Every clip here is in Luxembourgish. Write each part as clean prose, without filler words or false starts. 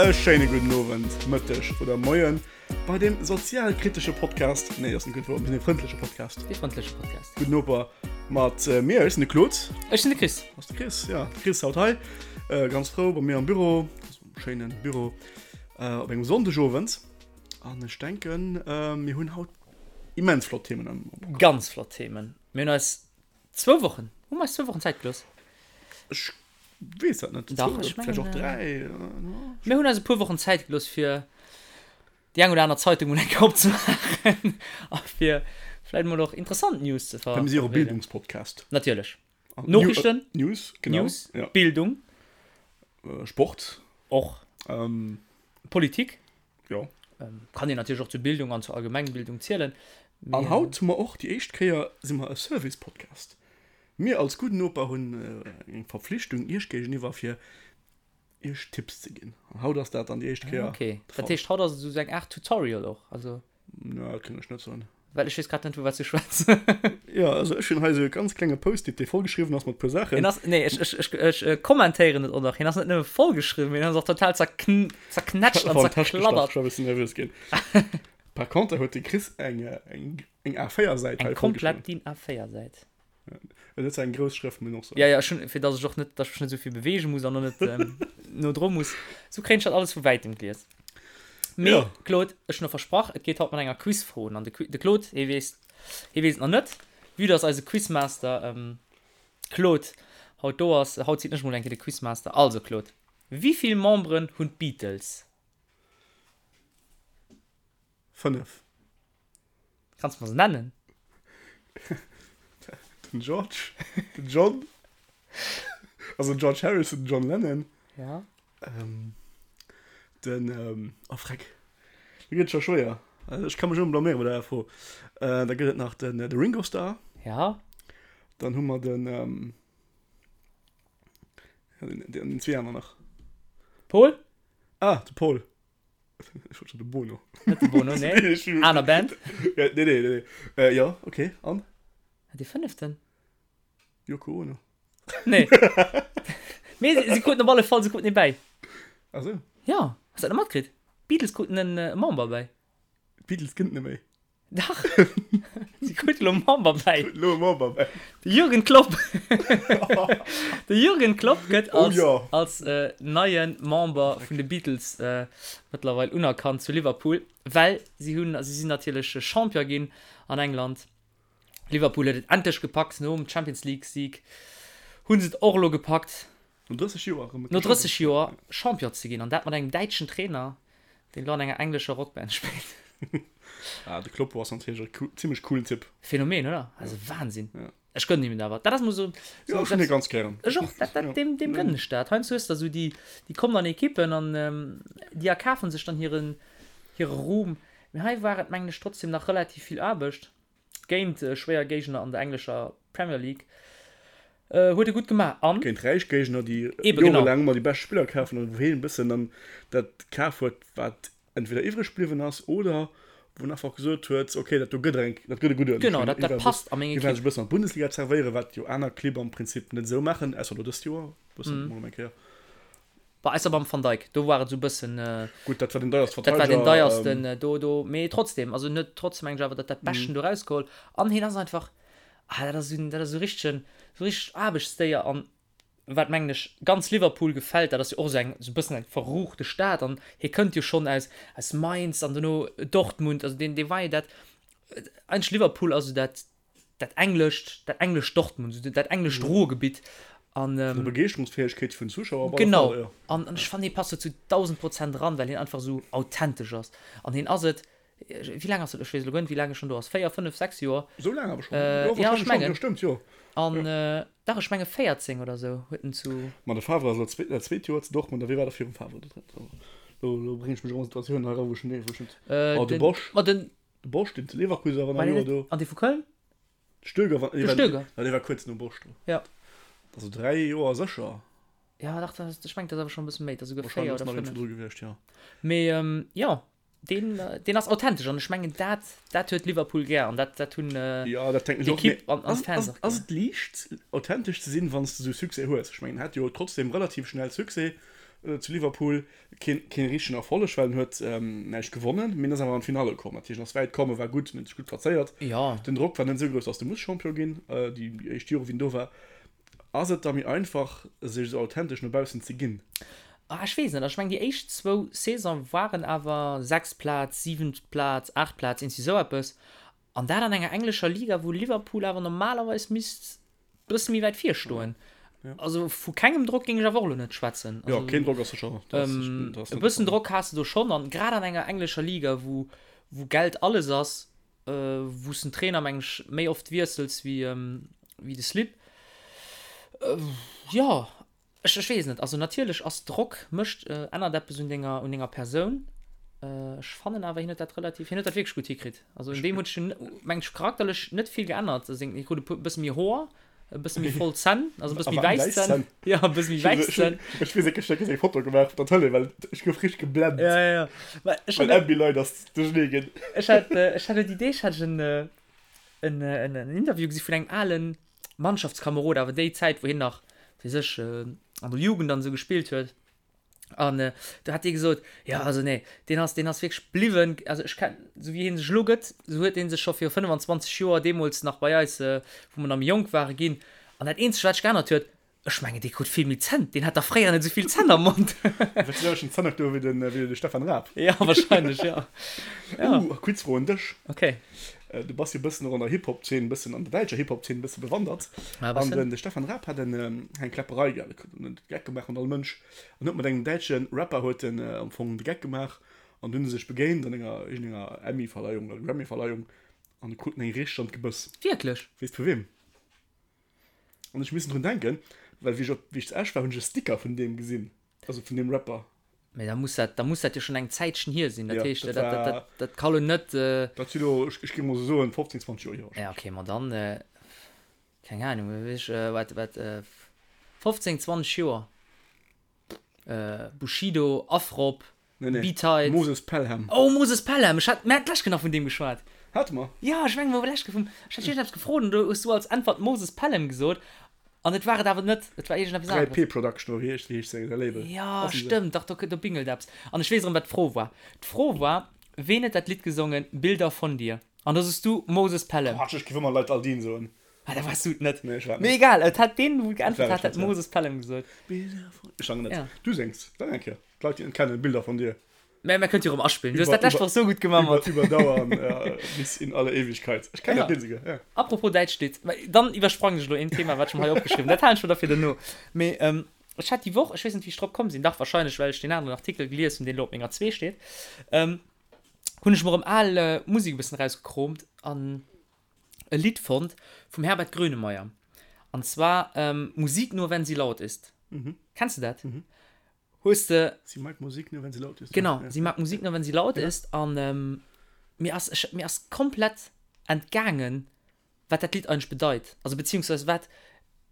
E schéine gudden Owend, Mëtteg oder Moien bei dem sozialkritesche Podcast, nee, ass net gutt Wuert, mir sinn e frëndleche Podcast. Dee frëndleche Podcast. Gudden Noper mat mir, ech sinn de Claude. Ech sinn de Chris. Ass de Chris, ja, de Chris haut hei, ganz frou bei mir am Büro, schéinen Büro, op engem Sonndegowend. An ech denken, mir hunn haut immens flott Themen am Programm. Ganz flott Themen. Mir hunn eis zwou Wochen, hu mer eis zwou Wochen Zäit gelooss? Ech weess dat net. Dach, ech mengen. Vläicht och 3. Mir hunn eis e puer Wochen Zäit gelooss, fir déi eng oder aner Zeitung mol eng Kéier opzemaachen a fir vläicht mol och interessant News ze ver. Mir si jo och e Bildungspodcast. Natierlech. Noriichten. News, genau. News, Bildung. Sport. Och. Politik. Jo. Kann een natierlech och zur Bildung an zur Allgemengbildung zielen. An haut hu mer och déi éischt Kéier si mer e Service-Podcast. Mir als Gudden Noper hunn eng Verpflichtung Iech géigeniwwer fir Iech Tipps ze ginn. An haut ass dat dann déi éischt Kéier. Okay, dat heescht haut ass et esou eng Aart Tutorial och, also. Na, dat kënnt ech net soen. Well ech weess grad net vu wat s du schwätz. Jo, also ech hunn hei esou e ganz klenge Post-it, dee vollgeschriwwen ass mat puer Saachen. Hien ass, nee, ech, ech, ech, ech kommentéieren et och nach, hien ass net nëmme vollgeschriwwen, mee hien ass och total zerkn, zerknätscht an zerkladdert. Ech war e bëssen nervös ginn. Par contre huet de Chris eng, eng, eng A4-Säit hei vollgeschriwwen. Eng komplett DIN A4-Säit. Et huet zwar eng grouss Schrëft, muss een och soen. Ja, ja, ech hunn, fir dass ech och net, dass ech mech net esou vill beweege muss an och net no dru muss. Sou kréien ech dat alles vu wäitem gelies. Mee, Ja. Claude, ech hunn och versprach, et geet haut mat enger Quizfro un. An de Qui-, de Claude, hie weess, hie weess et nach net, vue dass eise Quizmaster Claude haut do ass. Haut sinn ech mol eng Kéier de Quizmaster. Also, Claude, wéi vill Memberen hunn d'Beatles? 5. Kanns mer se nennen? Den George, den John, also den George Harrison, den John Lennon. Ja. Ähm, den, ähm, oh freck, do gëtt et scho schwéier. Also ech ka mech ëmmer blaméiere bei der Fro. Äh, da gëtt et nach den, de Ringo Starr. Ja. Dann hu mer den, ähm, den, den zwee aner nach. Paul? Ah, de Paul. Ech wollt schon de Bono. Net de Bono, nee. Aner Band. Ja, nee, nee, nee. Äh, ja, okay. An? Dee fënneften? Yoko Ono. Nee. Mee si, si kruten op alle Fall, si kruten ee bäi. Ach sou. Ja, has dat net matkritt? D'Beatles kruten en e Member bäi. D'Beatles gënnt net méi. Dach! Si krute lo Member bäi. Lo e Member bäi. De Jürgen Klopp. De Jürgen Klopp gëtt Oh als, ja. als äh, neie Member vun de Beatles äh, mëttlerweil unerkannt zu Liverpool, well si hunn, si sinn natierlech Champion ginn an England. Liverpool huet et endlech gepackt, nom Champions League Sieg hu se et och elo gepackt. No 30 Joer erëm. No 30 Joer Champion ze ginn an dat mat engem däitschen Trainer, deen elo an enger englescher Rockband spillt. Ah, de Kloppo ass natierlech e zimmlech coolen Typ. Phänomen, oder? Also Wahnsinn. Ja. Ech gënnen him et awer. Dat ass mol sou. Jo, ech hunn hie ganz gären. Ech och. Dat, dat, deem, deem gënnen ech dat. Heiansdo hues de esou déi, déi kommen an Ekippen an déi erkafen sech dann hiren, hire Ruhm. Mee hei war et, mengen ech, trotzdem nach relativ vill Aarbecht. Géint schwéier Géigner an der englescher Premier League huet e gutt gemaach an. Géint räich Géigner, déi jorelaang ëmmer déi bescht Spiller kafen an wou hien e bëssen dann dat kaf huet, wat entweder iwwreg bliwwen ass oder wou en einfach gesot huet, ok, dat do gëtt eng, dat gëtt e gudden. Genau, dat dat passt a meng Ekipp. Hie war sech e bëssen an d'Bundesliga zerwéieren, wat jo aner Clibb am Prinzip net esou maachen, ausser elo dëst Joer e bëssen, mol eng Kéier. Bah, ausser beim Van Dijk, do war et esou bëssen. Gutt, dat war den deierste Verteideger. Dat war den deiersten do, do, mee trotzdem, also en huet trotzdem mengen ech awer dat dat Beschten do erausgeholl an hien ass einfach, ah, dat ass esou, dat ass esou richtegen, esou richtegt Aarbechtsdéier an wat mengen ech ganz Liverpool gefält, dat ass jo och esou eng, esou e bëssen eng verruchte Stad an hie kënnt jo schonn aus, aus Mainz an dono Dortmund, also deen, dee war jo dat, eigentlech Liverpool ass esou dat, dat englescht, dat englescht Dortmund, esou dat englescht Ruhrgebitt an. Vun der Begeeschterungsfäegkeet vun Zuschauer op alle Fall, jo. Genau, an ech fannen, hie passt do zu 1000% eran, well hien einfach esou authentesch ass. An hien ass et, wéi laang ass et, ech weess elo guer net, wéi laang e schonn do ass, 4, 5, 6 Joer? Esou laang awer schonn? Jo, ja, ech mengen. Jo, stëmmt, jo. An, dach, ech menge 14 oder esou huet en zu. Ma de Favre ass elo dat zweet Joer zu Dortmund, a wee war da virum Favre do drin? Elo, elo bréngen ech mech erëm an Situatiounen hei eran, wou ech net, wou ech net. Oh, de Bosz. Ma den. De Bosz, deen zu Leverkusen war, war nach e Joer do. An dee vu Köln? De Stöger war, De Stöger. Ja, dee war kuerz nom Bosz do. Ja. Also 3 Joer sécher. Ja, dach, dat ass, ech mengen, dat ass awer schonn e bësse méi, dat ass esouguer 4 Wahrscheinlech oder ass nach een 5. virdru gewiescht, jo. Mee jo, deen, deen ass authentesch an ech mengen, dat, dat huet Liverpool gär an dat, dat hunn Ja, dat denken ech och. d'Ekipp Mee an, an ass, d'Fans ass, och ass gär. et liicht, authentesch ze sinn, wann s de esou Succès hues? Ech mengen, en hat jo trotzdem relativ schnell Succès. Zu Liverpool keen, keen richtegen Erfolleg, well en huet näischt gewonnen, mee en ass awer an d'Finale komm. Dat heescht, en ass wäit komm, e war gutt, en huet sech gutt plazéiert. Jo. Den Drock war net esou grouss, datt de muss Champion ginn, déi éischt Jore wéi en do war. Ass et da méi einfach, sech esou authentesch no baussen ze ginn? Ah, ech weess net. Also ech mengen, déi éischt zwou Saison waren awer sechst Plaz, siwent Plaz, aacht Plaz, iergendwéi esou eppes. An dat an enger englescher Liga, wou Liverpool awer normalerweis misst bësse méi wäit vir stoen. Also vu kengem Drock géing ech awer och elo net schwätzen. Jo, keen Drock ass sécher. E bëssen Drock has de do schonn. An grad an enger englescher Liga, wou wou Geld alles ass, wou s den Trainer, meng ech, méi oft wiessels wéi wéi de Slip. Jo. Ech ech weess net. Also natierlech ass Drock mécht ännert eppes un denger un denger Persoun. Ech fannen awer hien huet dat relativ hien huet dat wierklech gutt hikritt. Also un deem huet sech meng ech charakterlech net vill geännert. Seng hie krut e puer bësse méi Hoer, e bësse méi voll Zänn, also e bësse méi wäiss Zänn. Jo e bësse méi wäiss Zänn. Ech weess net, ech hunn eng Foto gemaach op der Tëlee, well ech gouf richteg geblent. Ja ja ja. Mä ech hat. Well Ambilight ass duerchernee ginn. Ech hat ech hat elo déi Deeg hat ech en en en Interview gesi vun engem alen Mannschaftskamerod, awer déi Zäit wou hien nach fir sech an der Jugend an esou gespillt huet. An do hat dee gesot, jo also nee, deen ass, deen ass wierklech bliwwen, also ech ken, esou wéi hie sech elo gëtt, esou huet dee sech scho viru 25 Joer deemools nach bei eis, wou mer nach méi jonk ware, ginn. An dat eenzegt wat sech geännert huet, Ech mengen dee krut vill méi Zänn, deen hat dach fréier net esou vill Zänn am Mond. Huet se selwechten Zänn do wéi den, wéi de Stefan Raab? Ja, wahrscheinlech, ja. Ja. Uh, Quizfro un dech. Okay. Du bass jo e bëssen och an der Hip-Hop-Zeen, e bëssen an der däitscher Hip-Hop-Zeen e bësse bewandert. Ja, e bëssen. An den, de Stefan Raab hat en, eng Kläpperei gehat, huet en de Geck gemaach mat all Mënsch. An huet mat engem däitsche Rapper huet en am Fong de Geck gemaach. An dunn hu se sech begéint an enger, iergendenger Emmy-Verleihung oder Grammy-Verleihung an kruten eng richteg an d'Gebëss. Wierklech? Weess de vu weem? An ech missen drun denken, well wéi ech op, wéi ech zu Esch war, hunn ech e Sticker vun deem gesinn, also vun deem Rapper. Mee da muss dat, da muss dat jo schonn eng Zäitchen hier sinn. Dat Ja, heescht, dat dat, dat, war, dat, dat ka lo net. dat si lo, ech, ech géing mol sou soen, 15, 20 Joer hier Ja, wahrscheinlech. okay, ma dann, keng Ahnung, wéi ech, wat, wat, 15, 20 Joer, Bushido, Afrob, Nee, nee. B-Tight. Moses Pelham. Oh, Moses Pelham! Ech hat, mir haten d'lescht Kéier nach vun deem geschwat. Hate mer? Jo, ech mengen, mer hu lech vum, ech hat iergendeppes gefrot an do hues du als Äntwert Moses Pelham gesot an et war et awer net, et war iergendeppes aneres. 3P Production oder wéi heescht, wéi heescht säi Label? Jo, stëmmt, dach, do, do bingelt eppes. An ech weess erëm, wat d'Fro war. D'Fro war, Ween huet dat Lidd gesongen Bilder von dir? An do sos du Moses Pelham. Quatsch, ech géif ëmmer Leit Aldin soen. Ah, da waars du et net. Nee, ech war et net. Mee egal, et hat deen, wou Et geäntwert war ech hat, hat net, ja. Moses Pelham gesot. Bilder von, ech sangen net. Ja. Du séngs, sang eng Kéier. D'Leit déi et net kennen, Bilder von dir. Mä mer kënnt jo erëm aspillen. Du hues Iwwer, dat lescht iwwer, Woch sou gutt gemaach iwwer, mat. iwwerdauern, ja, bis in alle Ewigkeit. Ech kennen Ja. dat Lidd esouguer, ja. Apropos däitscht Lidd, mä dann iwwersprangen ech elo een Thema, wat ech mer hei opgeschriwwen hunn. Dat halen ech mer da fir duerno. Mee ech hat déi Woch, ech weess net, wéi ech drop komm sinn, dach wahrscheinlech, well ech deen aneren Artikel gelies hunn, deen elo op menger zwee steet, hunn ech mer erëm al Musek e bëssen erausgekroomt an e Lidd fonnt vum Herbert Grönemeyer. An zwar Musik nur wenn sie laut ist. Kenns de dat? Hues de. Sie mag Musik nur wenn sie laut ist. Genau, sie mag Musik nur wenn sie laut ist. An mir ass, ech, mir ass komplett entgaangen, wat dat Lidd eigentlech bedeit. Also beziehungsweise wat,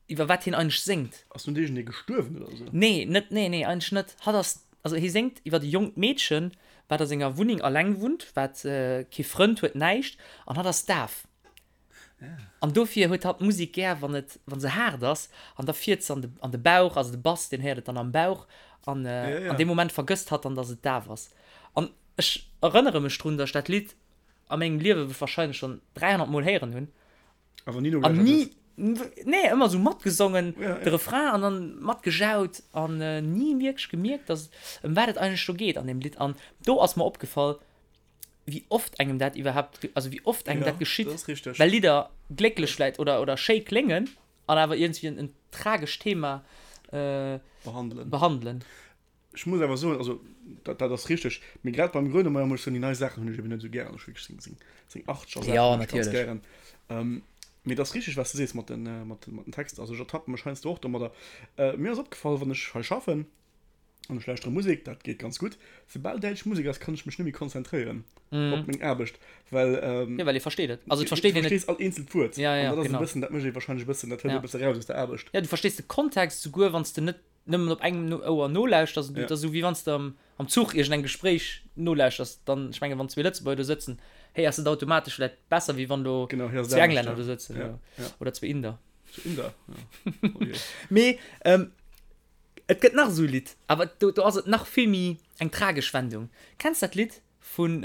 iwwer wat hien eigentlech séngt. Ass nun iergendee gestuerwen oder esou? Nee, net, nee, nee, eigentlech net. Hatt ass, also hie séngt iwwer e jonkt Meedchen, wat a senger Wunneng alleng wunnt, wat kee Frënd huet, näischt, an hatt ass daf. An dofir huet hatt d'Musek gär, wann et, wann se haart ass, an da fiert se an de, an de Bauch, also de Bass, deen héiert et dann am Bauch, an an deem Moment vergësst hatt dann, dass et daf ass. An ech erënnere mech drun, dass ech dat Lidd a mengem Liewe wahrscheinlech schonn 300 Mol héieren hunn. Awer ni An nogelauschtert ni, hues. nee, ëmmer esou matgesongen, de Refrain, an dann matgejaut, an ni wierklech gemierkt, dass, ëm wat et eigentlech do geet an deem Lidd. An do ass mer opgefall, wéi oft engem dat iwwerhaapt, also wéi oft engem Ja, dat geschitt, dat ass richteg. well Lidder glécklech vläit oder, oder schéi kléngen an awer iergendwéi en, en tragescht Thema äh, Behandelen. behandelen. Ech muss awer soen, also dat, dat ass richteg, mee grad beim Grönemeyer muss ech soen, déi nei Saachen hunn ech eben net esou gären. Ech hu wierklech seng, seng, seng achtzeger Saachen Ja, hunn ech ganz natierlech. gären. Ähm, mee et ass richteg, wat s de sees mat den, mat den, mat den Texter. Also ech ertappe mech heiansdo och domadder. Äh, mir ass opgefall, wann ech hei schaffen, An ech lauschtere Musek, dat geet ganz gutt. Soubal däitsch Musek ass, kann ech mech net méi konzentréieren op meng Aarbecht, well. Jo, well ee versteet et. Also et versteet een net. Du verstees all eenzelt Wuert. Ja, ja, An dat ass e genau. bëssen, dat mécht ee warscheinlech e bëssen, dat hëlt Ja. e bësse raus aus der Aarbecht. Ja, du verstees de Kontext, souguer wann s de net nëmmen op engem Ouer nolauschters. Et Ja. ass esou, wéi wann s de am, am Zuch iergendengem Gespréich nolauschters. Dann, ech mengen, wann zwee Lëtzebuerger do sëtzen, héiers de et automatesch vläicht besser, wéi wann do Genau, héiers et zwee anescht, Englänner ja. do sëtzen Ja, oder, ja. oder zwee Inder. Zwee Inder, ja. Oh je. Mee, ähm. Et gëtt nach esou e Lidd, awer do, do ass et nach vill méi eng tragesch Wendung. Kenns dat Lidd vun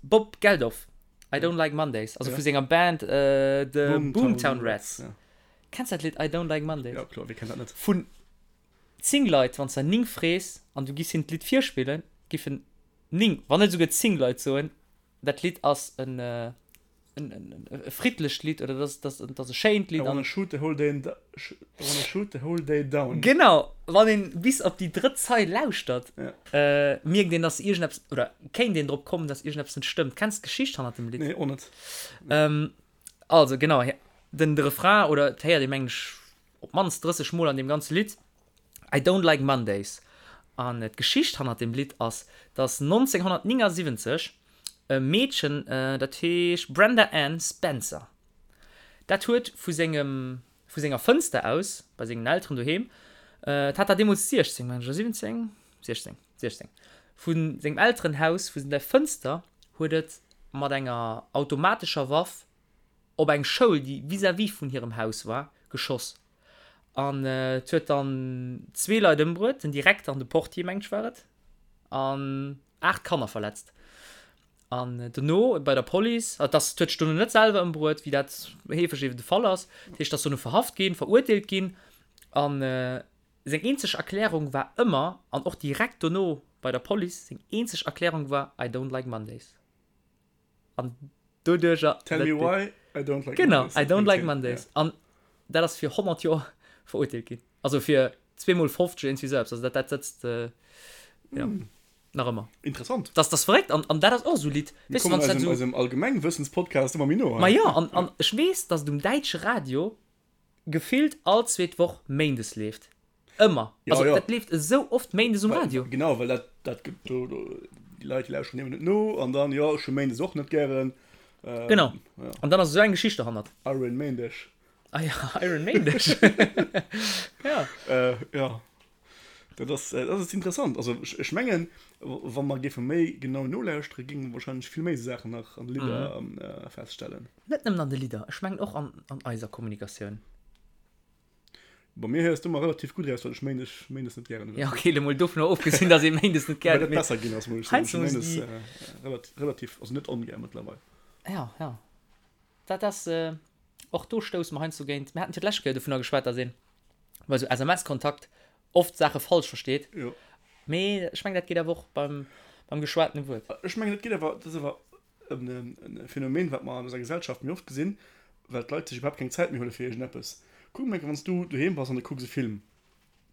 Bob Geldof, I Don't Like Mondays, also vu senger Band The Boomtown Rats. Kenns dat Lidd I Don't Like Mondays? Jo, kloer, wie kennt dat net? Vun 10 Leit, wann s de der 9 frees an du giss hinnen d'Lidd virspillen, giffen 9, wann net esouguer 10 Leit soen, dat Lidd ass en e friddlecht Lidd oder dat ass, dat ass e schéint Lidd. I wanna shoot the whole day, I wanna shoot the whole day down. Genau, wann een bis op déi drëtt Zeil lauschtert, mierkt een, dass iergendeppes, oder kéint een drop kommen, dass iergendeppes net stëmmt. Kenns d'Geschicht hannert dem Lidd? Nee, och net. Also genau, den Refrain, oder et héiert ee mengen ech op d'mannst 30 Mol an deem ganze Lidd, I don't like Mondays. An d'Geschicht hannert deem Lidd ass, dass 1979 e Meedchen, dat heescht Brenda Ann Spencer, dat huet vu sengem, vu senger Fënster aus, bei sengen Elteren doheem, et hat dat deemools 16, mengen ech, oder 17? 16, 16, vu sengem Elterenhaus, vu der Fënster huet et mat enger automatescher Waff op eng Schoul, déi vis-à-vis vun hirem Haus war, geschoss. An et huet dann zwee Leit ëmbruet, den Direkter an de Portier, mengt ech war et, an 8 Kanner verletzt. An dono bei der Police, et ass, et huet sech dono net selwer ëmbruet, wéi dat heefeg eben de Fall ass, dat heescht, ass dono verhaft ginn, verurteelt ginn. An seng eenzeg Erklärung war ëmmer, an och direkt dono bei der Police, seng eenzeg Erklärung war, I don't like Mondays. An doduercher. Tell me why I don't like Genau, Mondays. I don't like Mondays. An dat ass fir 100 Joer verurteelt ginn. Also fir zweemol 50 iergendwéi esou eppes. Also dat, dat sëtzt jo nach ëmmer. Interessant. Dat ass verréckt. An, an dat ass och esou e Lidd. Mir kommen eisem, eisem Allgemengwëssenspodcast ëmmer méi no. Ma jo, an, an ech weess, datt et um däitsche Radio gefillt all zweet Woch méindes leeft. Ëmmer. Ja, Also ja. dat leeft esou oft méindes um Well, Radio. genau, well dat, dat gëtt do, do, déi Leit, déi lauschteren eben net no an dann, jo, ech hu méindes och net gären. Ähm, Genau. Ja. An dann ass esou eng Geschicht derhannert. Iron Méindeg. Ah ja, Iron Méindeg. Ja. Äh, ja. Dat ass, dat ass interessant. Also ech, ech mengen, wa mer géife méi genau nolauschtere, géinge mer wahrscheinlech vill méi esou Saachen nach an de Lidder Mhm. äh, feststellen. Net nëmmen an de Lidder, ech mengen och an, an eiser Kommunikatioun. Bei mir héiers du ëmmer relativ gutt eraus, well ech Méindes, Méindes net gären hunn. Ja, okay, elo mol dovunner ofgesinn, dass ee Méindes net gären Well huet, dat mee besser ginn ass, muss ech soen. Ech heiansdo hu muss Méindes déi. äh, relativ, relativ, also net ongär mëttlerweil. Ja, ja. Dat ass, och do stousse mer heiansdo géint, mir haten fir d'lescht Kéier dovunner geschwat, dass een bei esou SMS-Kontakt oft Saache falsch versteet. Jo. Mee ech mengen, dat geet awer och beim, beim geschwatene Wuert. Ech mengen, dat geet awer, dat ass awer e Phänomen, wat mer an eiser Gesellschaft méi oft gesinn, well d'Leit sech iwwerhaapt keng Zäit méi huele fir iergendeppes. Kuck mol eng Kéier, wann s du doheem bass an du kucks e Film.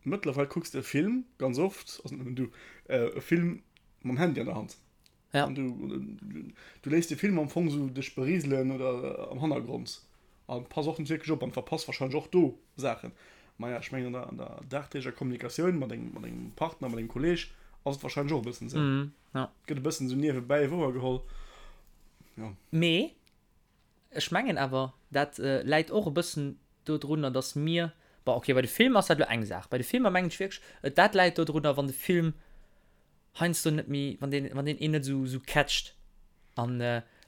Mëttlerweil kucks de e Film ganz oft, also net nëmmen du, e Film mam Handy an der Hand. Ja. An du, du léiss de Film am Fong esou dech beriselen oder am Hannergrond an pass och net wierklech op an verpass wahrscheinlech och do Saachen. Maja, ech mengen an der, an der dagdeeglecher Kommunikatioun mat engem, mat engem Partner, mat engem Kolleg ass et wahrscheinlech och e bëssen esou. Mhm, ja. Gëtt e bëssen esou niewebäi wouergeholl. Ja. Mee ech mengen awer, dat läit och e bëssen dodrunner, dass mir, bon okay, bei de Filmer ass dat elo eng Saach, bei de Filmer mengen ech wierklech, dat läit dodrunner, wann de Film heiansdo net méi, wann deen, wann deen een net esou, esou catcht an.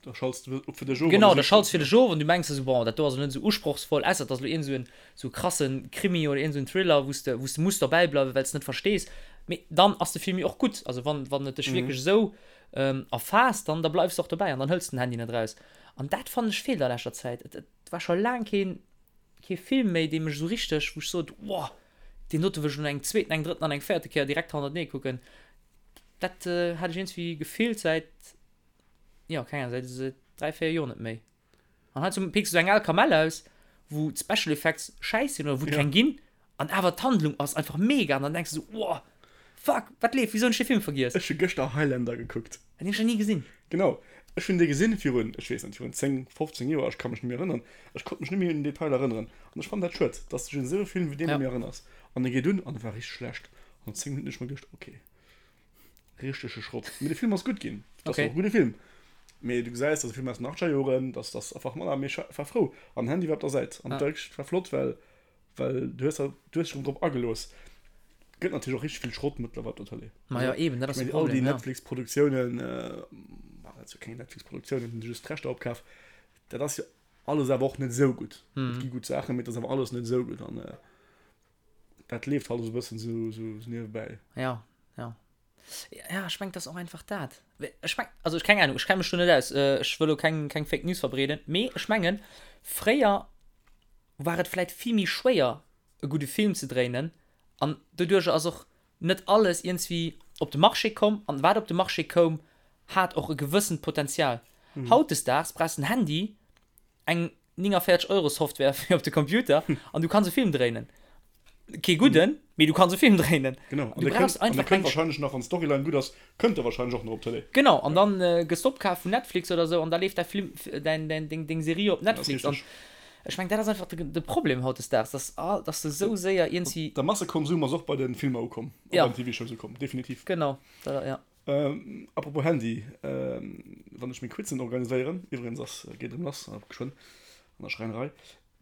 Da schalts de op fir dech of. Genau, da schalts fir dech of an du mengs der esou, bon, dat do ass elo net esou usprochsvoll, ausser et ass elo iergend esou en, esou e krasse Krimi oder iergend esou en Thriller, wou s de, wou s de muss derbäi bleiwen, well s de net verstees. Mee dann ass de Film jo och gutt. Also wann, wann et dech wierklech esou erfaasst, dann, da bleifs de och dobäi an dann hëls de den Handy net eraus. An dat fannen ech feelt a leschter Zäit. Et, et war scho laang keen, kee Film méi, dee mech esou richteg, wou ech sot, wow, Deen dote wëll ech elo eng zweeten, eng drëtten an eng véierte Kéier direkt hannertenee kucken. Dat hat ech iergendwéi gefillt säit, jo, keng Ahnung, säit säit 3, 4 Joer net méi. An heiansdo picks du eng al Kamell aus, wou d'Special Effects schäiss sinn oder wou et keng ginn, an awer d'Handlung ass einfach mega an dann denks du sou, Woah, fuck, wat leeft, wisou hunn ech dee Film vergiess? Ech hu gëschter Highlander gekuckt. Deen hunn ech nach ni gesinn. Genau, ech hunn dee gesinn virun, ech weess net, virun 10, 15 Joer, ech ka mech net méi erënneren. Ech konnt mech net méi un den Detail erënneren. An ech fannen dat schued, dass du dech un esou e Film wéi deen net méi erënners. An e geet un an e war richteg schlecht. An no 10 Minutten hunn ech mer geduecht, ok, richtege Schrott. Mee de Film ass gutt ginn, et ass och e gudde Film. Mee du gesäis, dat ass e Film aus den achtzeger Joren, dass dass einfach manner, mee ech war frou. An den Handy war op der Säit. An dat war flott, well Well du hues du hues dech erëm drop agelooss. Gëtt natierlech och richteg vill Schrott mëttlerweil op der Tëlee. Ma jo, eben, dat ass de All déi Problem, ja. Netflix-Produktiounen, ma dat si jo keng Netflix-Produktiounen, hunn se just d'Rechter opkaf. Dat ass jo alles awer och net esou gutt. Et gi gutt Saachen, mee et ass awer alles net esou gutt. An. Dat leeft halt esou e bëssen esou esou niewebäi. Ja, ja. Ja, ech mengen, et ass och einfach dat. Ech meng, also ech keng Ahnung, ech kenne mech do net aus, ech wëll elo keng, keng Fake News verbreeden, mee ech mengen, fréier war et vläit vill méi schwéier, e gudde Film ze dréinen an doduercher ass och net alles iergendswéi op de Marché komm an wat op de Marché koum, hat och e gewëssent Potenzial. Hautdesdaags brauchs de en Handy, eng 49 Euro Software fir op de Computer an du kanns e Film dréinen. Kee gudden, mee du kanns e Film dréinen. Genau, an Du der brauchs kënnt, an der einfach kënnt eng. wahrscheinlech nach, wann d'Storyline gutt ass, kënnt der wahrscheinlech och nach op d'Tëlee. Genau, an dann gëss de opkaf vun Netflix oder sou an da leeft däi Film, däin, däin, deng, deng Serie op Dat ass Netflix. An richteg. ech meng, dat ass einfach de, de Problem hautdesdaags, dass all, dass de sou séier iergendwéi. De Massekonsum ass och bei de Filmer ukomm, a Ja. bei den TV-Shows ukomm, definitiv. Genau, dat, ja. Apropos Handy, wann ech meng Quizen organiséieren, iwwregens ass, geet erëm lass geschwënn an der Schräinerei,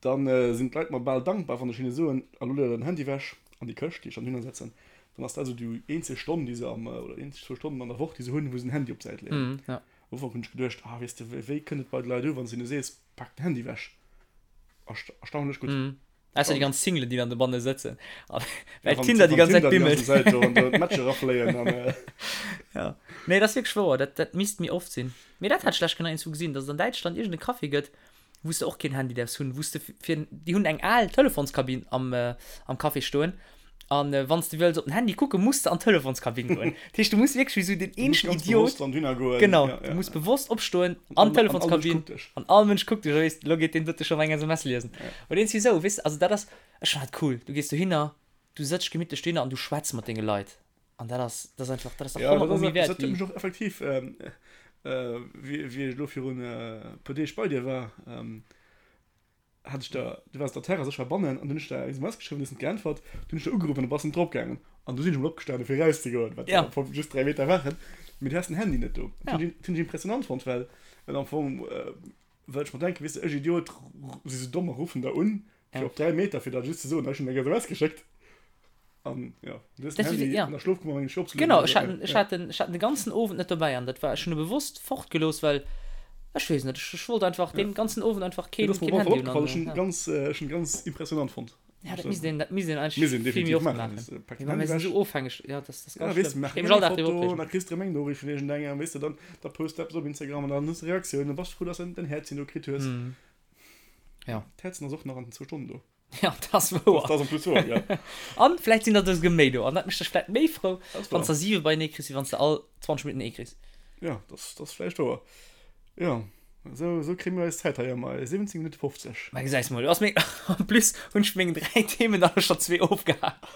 dann sinn d'Leit mer bal dankbar, wann ech hinne soen, a lo leet der den Handy ewech an déi Këscht, déi ech dann dohinner setzen. Dann ass dat esou déi eenzeg Stonn, déi se am, oder déi eenzeg zwou Stonnen an der Woch, déi se hunn, wou se den Handy op d'Säit leeën. Am Ufank hunn ech geduecht, ah weess de, wéi kënnt et bei de Leit u, wann s de hinne sees, pak den Handy ewech? Erstaunlech gutt. Ausser déi ganz Singlen, déi dann dobanne sëtzen. Well Tinder déi ganz Zäit bimmelt. D'Matcher rafléien an. Ja. Nee, dat ass wierklech wouer. Dat, dat misst méi oft sinn. Mee dat hat ech lech genau iergendwou gesinn, datt et an Däitschland iergend e Café gëtt, wou s de och keen Handy däerfs hunn, wou s de fir, déi hunn eng al Telefonskabinn am, am Café stoen. An wann s de wëlls op den Handy kucken, muss de an d'Telefonskabinn goen. Dat heescht, du muss wierklech wéi esou den eenzegen Idiot. Genau, du muss bewosst opstoen, an d'Telefonskabinn, an all Mënsch kuckt dech a weess, elo geet deen dote schonn eng SMS liesen. Oder iergendwéi esou, weess de. Also dat ass, ech fannen dat cool. Du gees dohinner, du sëtz gemittlech dohinner an du schwätz mat denge Leit. An dat ass, dat ass einfach, dat ass dach honnertmol méi wäert Dat huet wéi. mech och effektiv, wéi ech elo virun e puer Deeg bei dir war, hat ech der, du waars op der Terrass, ech war bannen an dunn hunn ech der eng SMS geschriwwen, du hues net geäntwert, dunn hunn ech der ugeruff an du bass net drop gaangen an du sinn ech emol opgestanen fir erauszegoen, wat Ja. am Fong just 3 Meter waren, mee du has den Handy net do. Dat Ja. hunn ech hunn ech impressionant fonnt, well well am Fong well ech mer denken, weess de, ech Idiot si sou domm a ruffen der un fir Ja. op 3 Meter fir der just ze soen, ech hunn eng SMS geschéckt an jo, du hues den Dat Handy ja. an der Schlofkummer mengen ech opzelueden Genau, oder ech sou, hat ja, en, ech ja. hat en, ech hat en de ganzen Owend net dobäi an dat war, ech hunn e bewosst fortgelooss, well ech weess net, ech, ech wollt einfach Ja. deen ganzen Owend einfach Nee, keen, dat ass mer keen op alle Handy Fall hunn opgefall, an ech hunn ja. ganz, ech hunn ganz impressionant fonnt. Ja, dat misst een, dat misst een Misst eigentlech een vill méi definitiv oft maachen. maachen. Weess de, pak Mee den mir Handy sinn ewech. esou ofhängeg, ja, dat ass Ja, ganz weess de, schlëmm. Ech maach géif eng mech all Dag driwwer Foto, opreegen. da kriss de erëm eng Noriicht vun iergendengem, weess de, dann da post de eppes op Instagram an dann hues de Reaktiounen, da bass de frou, dass de den Häerzchen do kritt hues. Mhm. Ja. D'Häerzen ass och nach an den zwou Stonnen do. Ja, dat ass wouer. Dat ass en plus wouer, ja. An vläicht sinn der esouguer méi do. An dat mécht dech vläicht méi frou, Dat ass wann s wouer. der siwe beienee kriss, wéi wann s de all 20 Minutten ee kriss. Ja, dat ass vläicht wouer. Jo, esou, esou kréie mir eis Zäit hei ëm 17 Minutte 50. Mä gesäis mol, du ass meng, en plus hunn ech meng 3 Themen der scho zwee ofgehakt.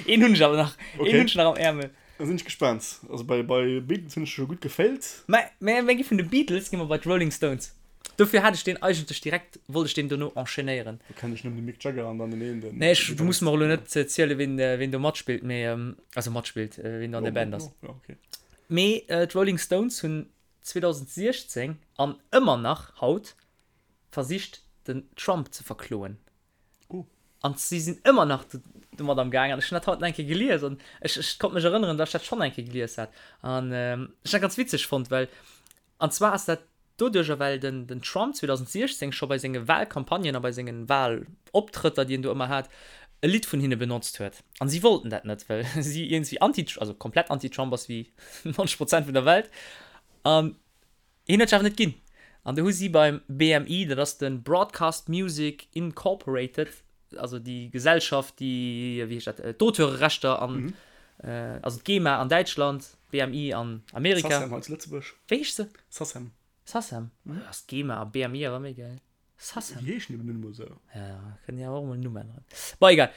Een hunn ech awer nach, een Okay. hunn ech nach am Äermel. Da sinn ech gespaant. Also bei, bei Beatles hunn ech scho gutt gefailt. Mä, mä mir gi vun de Beatles gi mer bei d'Rolling Stones. Dofir hat ech deen eigentlech direkt, wollt ech deen dono enchaînéieren. Do kennen ech nëmmen de Mick Jagger an dann den een, den. Nee, ech, du muss mer elo net zielen, ween, ween do matspillt, mee, also matspillt, ween do an der Band ass. Jo, okay. Mee d'Rolling Stones hunn 2016 an ëmmer nach haut versicht, den Trump ze verkloen. Oh. An si sinn ëmmer nach domat am Gaang. An ech hunn dat haut nach eng Kéier gelies an ech, ech konnt mech erënneren, datt ech dat schonn eng Kéier gelies hat. An ech hunn dat ganz witzeg fonnt, well, an zwar ass dat doduercher, well den, den Trump 2016 scho bei senge Wahlcampagnen a bei senge Wahloptrëtter, déi en do ëmmer hat, e Lidd vun hinne benotzt huet. An si wollten dat net, well si iergendwéi anti, also komplett anti-Trump ass wéi 90 Prozent vun der Welt. An Hien huet sech awer net ginn. An du hu si beim BMI, dat ass de Broadcast Music Incorporated, also déi Gesellschaft, déi, wéi heescht dat, d'Auteurerechter an, also d'GEMA an Däitschland, BMI an Amerika. SACEM hei zu Lëtzebuerg. Wéi heescht se? SACEM. SACEM? Ass d'GEMA a BMI awer méi gäil. Sassem. Déi heeschen eben nun emol esou. Ja, kënnen jo och emol en Numm änneren. Bon, egal.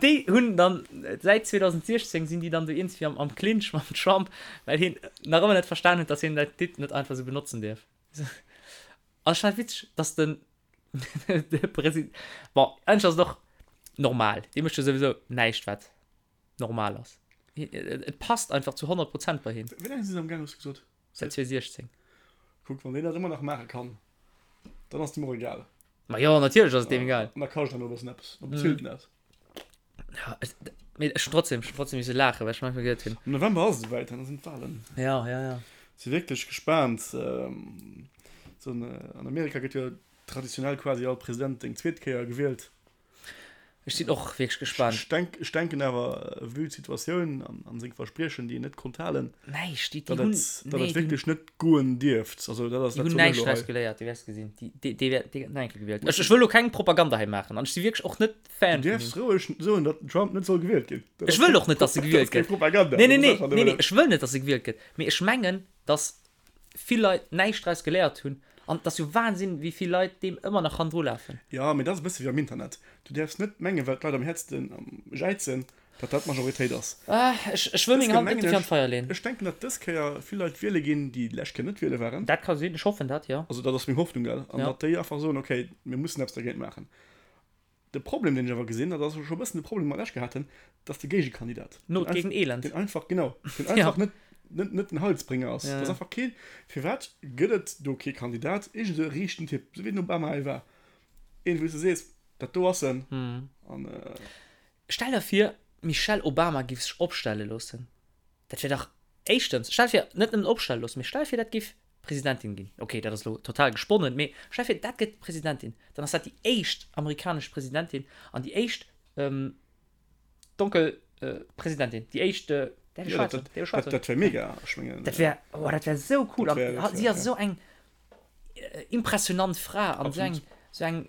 Déi hunn dann, säit 2016 sinn déi dann do iergendwéi am, am Clinch mam Trump, well hien nach ëmmer net verstan huet, dass hien dat Lidd net einfach esou benotzen dierf. An ech fannen et witzeg, dass den, de President, bon, eigentlech ass et och normal, dee mécht jo souwisou näischt, wat normal ass. Et passt einfach zu 100 Prozent bei him. Wéi laang si se am Gaang, hues du gesot? Säit 2016. Kuck, wann deen dat ëmmer nach maache kann, dann ass et em och egal. Ma jo, natierlech ass et deem egal. An da kascht en och e bëssen eppes, da bezilt en dat. Ja, et, mee ech hunn trotzdem, ech hunn trotzdem misse laachen, well ech manchmal geduet hunn. Am November ass et esouwäit, dann sinn d'Walen. Ja, ja, ja. Si wierklech gespaant. Sou an Amerika gëtt jo traditionell quasi all President eng zweet Kéier gewielt. Ech sinn och wierklech gespaant. Ech denk, ech denken awer, vue d'Situatioun an, an seng Verspriechen, déi en net konnt halen, Näischt, déi, déi datt hunn, et, datt nee, et déi hunn, wierklech net goen dierft. Also dat ass déi dat hunn soen ech näischt elo hei. draus geléiert, du wäers gesinn. Déi, déi, déi wäert, déi gëtt nach eng Kéier gewielt. Ech, ech wëll elo keng Propaganda hei maachen an ech si wierklech och net Du Fan vun däerfs him. roueg soen, datt den Trump net soll gewielt ginn. Dat Ech ass wëll keng och net, datt e dat gewielt ass keng gëtt. Propaganda. Nee, nee, Dat ass nee, einfach nee, nee, nëmmen. ech wëll net, datt e gewielt gëtt. Mee ech mengen, datt vill Leit näischt draus geléiert hunn an et ass jo Wahnsinn, wéi vill Leit deem ëmmer nach hannendru lafen. Jo, mee dat ass e bësse wéi am Internet. Du däerfs net mengen, well d'Leit am häertsten jäizen, datt dat d'Majoritéit ass. Ech, ech wëll Dës meng Kéier Hand net mengen dofir an ech, d'Feier leen. ech denken, datt dës Kéier vill Leit wiele ginn, déi d'lescht Kéier net wiele waren. Dat ka sinn, ech hoffen dat, jo. Also dat ass meng Hoffnung, gell? An Ja. datt déi einfach soen, okay, mir mussen eppes dergéint maachen. De Problem, deen ech awer gesinn, dat ass scho e bëssen de Problem, dee mer d'lescht Kéier haten, dat ass de Géigekandidat. Not gegen Elend. Deen einfach, genau, deen einfach net, net, net den Heilsbringer ass. Dat ass einfach keen, firwat gëtt et do kee Kandidat, iergend esou e riichten Typ, esou wéi den Obama ee war, een, wou s de sees, dat do ass en. An. Stell der vir, d'Michelle Obama giff sech opstelle loossen. Dat wär dach, éischtens, stell vir, net nëmmen opstelle loossen, mee stell vir, dat giff Presidentin ginn. Ok, dat ass elo total gesponnen, mee stell vir, dat gëtt Presidentin, dann ass dat déi éischt amerikanesch Presidentin an déi éischt donkel Presidentin, déi éischt, däerf ech schwaarz soen? Däerf ech schwaarz soen? Dat wär mega, ech mengen. Dat wär, oh, dat wär esou cool. An si ass esou eng impressionant Fra an esou eng, esou eng,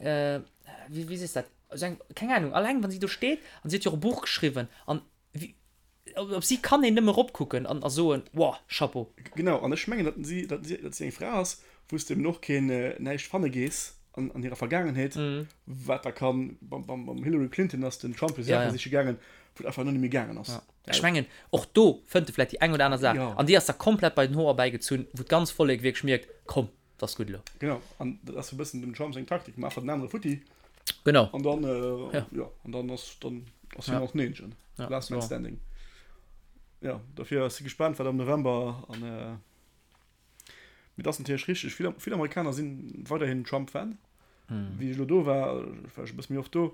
wéi, wéi sees dat, esou eng, keng Ahnung, alleng wann si do steet an si huet jo och e Buch geschriwwen an wéi, Op si kann een nëmme eropkucken an a soen, Wow, Chapeau! Genau, an ech mengen, datt si, datt si, datt si eng Fra ass, wou s de eben och keen, näischt fanne gees an, an hirer Vergaangenheet, wat da kann, beim, beim, beim Hillary Clinton ass den Trump jo Saache siche gaangen, wou et einfach net méi gaangen ass. Ja. Ech mengen, och do fënnt e vläicht déi eng oder aner Saach, an déi ass da komplett bei den Hoer erbäigezunn, wou d'ganz Vollek wierklech mierkt, Komm, 't ass gutt elo. Genau, an dat ass e bëssen dem Trump seng Taktik, maach den anere futti. Genau. An dann, äh, ja. ja, an dann ass, dann ass hien och den Eenzegen. Ja, Last man standing. Ja, dofir ass si gespaant, wat am November an, äh, mee dat ass natierlech richteg, vill, vill Amerikaner sinn weiderhin Trump-Fan. Wéi ech elo do war, war ech e bësse méi oft do,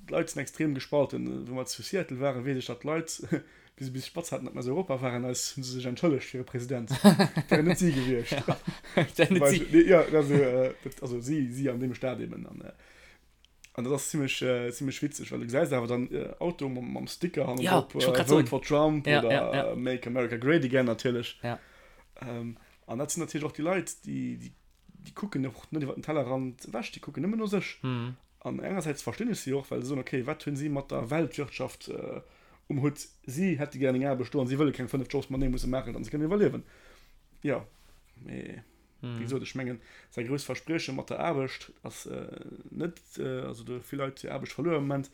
d'Leit sinn extrem gespalten. Wou mer zu Seattle waren, weess ech, datt d'Leit, wéi se bis spatz haten, datt mer aus Europa waren, eis hu se sech entschëllegt fir hire President. Dat wären net si gewiescht. Dat wären net si. Jo, also, dat, also si, si an deem Staat eben. An, an dat ass zimmlech, zimmlech witzeg, well du gesäis awer dann Auto mam, mam Sticker hannendrop, Ja, ech wollt grad soen. Vote for Trump Ja, oder ja, ja. Make America Great Again natierlech. Ja. An dat sinn natierlech och déi Leit, déi, déi déi kucken och net iwwer den Tellerrand ewech, déi kucken nëmmen no sech. An engersäits verstinn ech si och, well se soen, okay, wat hunn si mat der Weltwirtschaft um Hutt? Si hätte gär eng Aarbecht do an si wëlle keng 5 Jobs matenee musse maachen, datt se kënnen iwwerliewen. Jo, mee wéi gesot, ech mengen, säi grousst Versprieche mat der Aarbecht ass net, also do hu vill Leit hir Aarbecht verluer am Moment,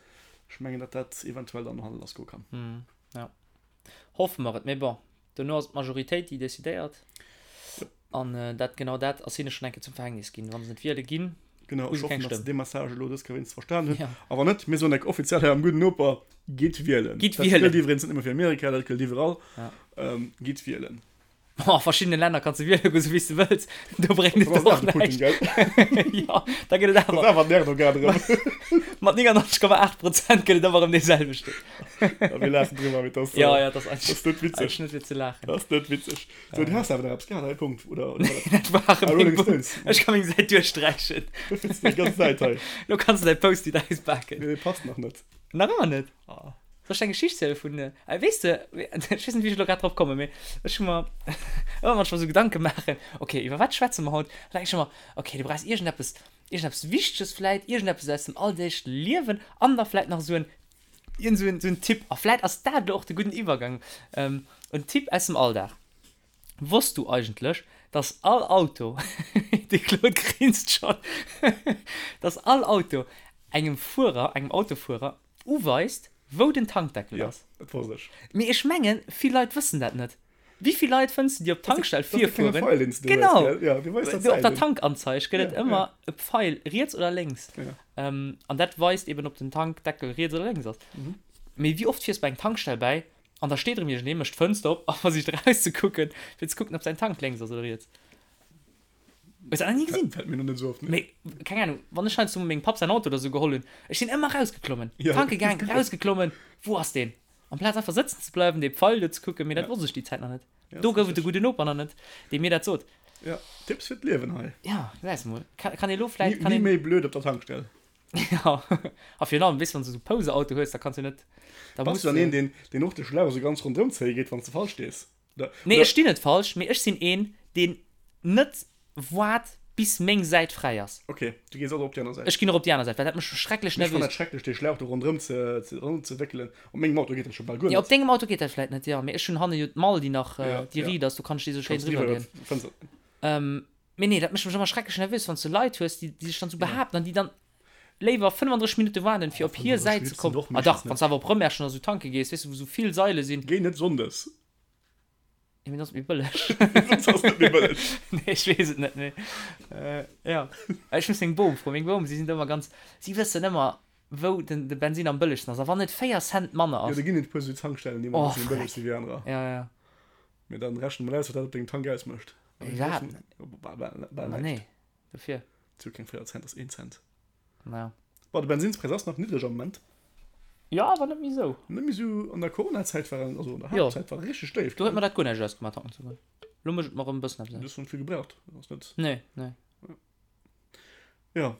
ech mengen, datt dat eventuell dann no hanne lassgoe kann. Jo, hoffe mer et. Mee bon, Dono ass et d'Majoritéit, déi decidéiert. An dat, genau dat ass hinne schonn eng Kéier zum Verhängnis ginn. Wa se net wiele ginn, Genau, hu ech se keng hoffen, datt se Stëmm. dee Message elo dës Kéier wéinstens verstan hunn. Ja. A wann net, mir soen enk offiziell hei am Gudden Noper, Gitt wielen. Gitt Dat wielen! gëllt iwwregens net nëmme fir Amerika, dat gëllt iwwerall. Ja. Gitt wielen. A verschiddene Länner kanns de wiele goen, sou wéi s de wëlls. Do bréngt et Dat ass och awer de Putin, näischt. gell? Jo, da gëtt et Dat ass awer. awer den Erdogan erëm. Mat 99,8 Prozent gëtt et ëmmer erëm dee selwechten. Ja, mir laachen drüber, mee das, Ja, äh, ja, das das ist net witzeg. eigentlich net fir ze laachen. Das ist net witzeg. So, du hast awer nach eppes gehat, hei, Punkt. Oder, oder war Dat war Ah, meng Rolling Punkt. Stones. Ech ka meng Säit duerchsträichen. Du findest déi ganz Säit hei. Lo kanns du däi Post-it auspaken. Nee, passt nach net. Nach ëmmer net? Ah. Soll ech eng Geschicht ziele vun, äh, weess de, ech weess net, wéi ech elo grad drop kommen, mee ech hu mer ëmmer manchmal esou Gedanke maachen, okay, iwwer wat schwätze mer haut? An da denk ech ëmmer, okay, du brauchs iergendeppes, iergendeppes Wichteges vläit, iergendeppes aus dem alldeegleche Liewen an da vläit nach esou en Iergend sou en Tipp, a vläit ass dat elo och de gudden Iwwergang, en Tipp aus dem Alldag, Wosst du eigentlech, dass all Auto, de Claude grinst schonn, dass all Auto engem Fuerer, engem Autofuerer uweist, wou den Tankdeckel ass? Jo, dat wosst ech. Mee ech mengen, vill Leit wëssen dat net. Wéi vill Leit fënns de, déi op d'Tankstell virfueren? Genau! Op der Tankanzeig gëtt et ëmmer e Pfeil riets oder lénks. An dat weist eben, ob den Tankdeckel riets oder lénks ass. Mee wéi oft fiers bei eng Tankstell bäi an da steet erëm iergendee, mécht d'Fënster op a versicht erauszekucken, fir ze kucken, ob säin Tank lénks ass oder riets. Hues dat nach ni gesinn? Fält mir nach net esou op, nee. Mee keng Ahnung, wann ech heiansdo mengem Papp säin Auto oder esou geholl hunn, ech sinn ëmmer erausgeklommen, tanke gaang, erausgeklommen, wou ass deen? Amplaz einfach sëtzen ze bleiwen, dee Pfeil do ze kucken, mee dat wosst ech déi Zäit nach net. Do gouf et e gudden Noper nach net, dee mir dat sot. Ja, Tipps fir d'Liewen hei. Ja, gesäis de mol. Kann, kann ee lo vläit, kann een. Ni méi blöd op der Tankstell. Ja, a virun allem, weess, wann s de esou Pouse-Auto hues, da kanns du net, da Bass muss du dann een, deen, deen och de Schlauch esou ganz ronderëm zéie geet, wann s de falsch stees? Oder, Nee, ech stinn net falsch, mee ech sinn een, deen net waart, bis meng Säit fräi ass. Ok, du gees also op déi aner Säit. Ech ginn och op déi aner Säit, well dat mécht mech schrecklech Ech fannen dat nervös. schrecklech, dee Schlauch do ronderëm ze, ze, ronderëm ze wéckelen. Op mengem Auto geet dat scho bal guer Ja, op net. dengem Auto geet dat vläit net, jo, mee ech hunn hanne jo d'Mall, déi nach, Ja, déi ja. riit ass, do kann ech déi esou schéin Kanns du driwwer iwwer leeën. d'Fënster. Ähm, Mee nee, dat mécht mech ëmmer schrecklech nervös, wann s de Leit hues, déi sech dann esou behaapten an déi dann léiwer 35 Minutte waarden, fir op hir Säit ze kommen. Ah dach, wann s de awer op Rëmerschen oder esou tanke gees, weess de, wou esou vill Saile sinn. Géi net sonndes. Jo, mee dann ass et méi bëlleg. Sonndes ass net méi bëlleg. Nee, ech weess et net, mee jo. Ech muss meng Bom froen. Meng Bom, si sinn do ëmmer ganz, si wëssen ëmmer, wou den de Bensin am bëllegsten ass. A wann et 4 Cent manner ass. Jo, do ginn et e puer esou Tankstellen, déi ëmmer e bësse méi bëlleg si wéi anerer. Jo, jo. Mee dann rechne mol aus, wat dat op dengem Tank ausmécht. Iwwerhaapt net. Bal, bal, bal näischt. Nee, dofir. Zu keng 4 Cent, ass 1 Cent. Ja. Bon, de Bensinnspräis ass nach niddreg am Moment. Jo, awer net méi esou. Net méi esou. An der Coronazäit war en, also an der Haaptzäit war e richteg déif. Do huet mer dat guer näischt ausgemaach, tanken ze goen. Lo mécht et mer erëm e bëssen eppes aus. Du hues net vill gebraucht. Ass net. Nee, nee. Ja.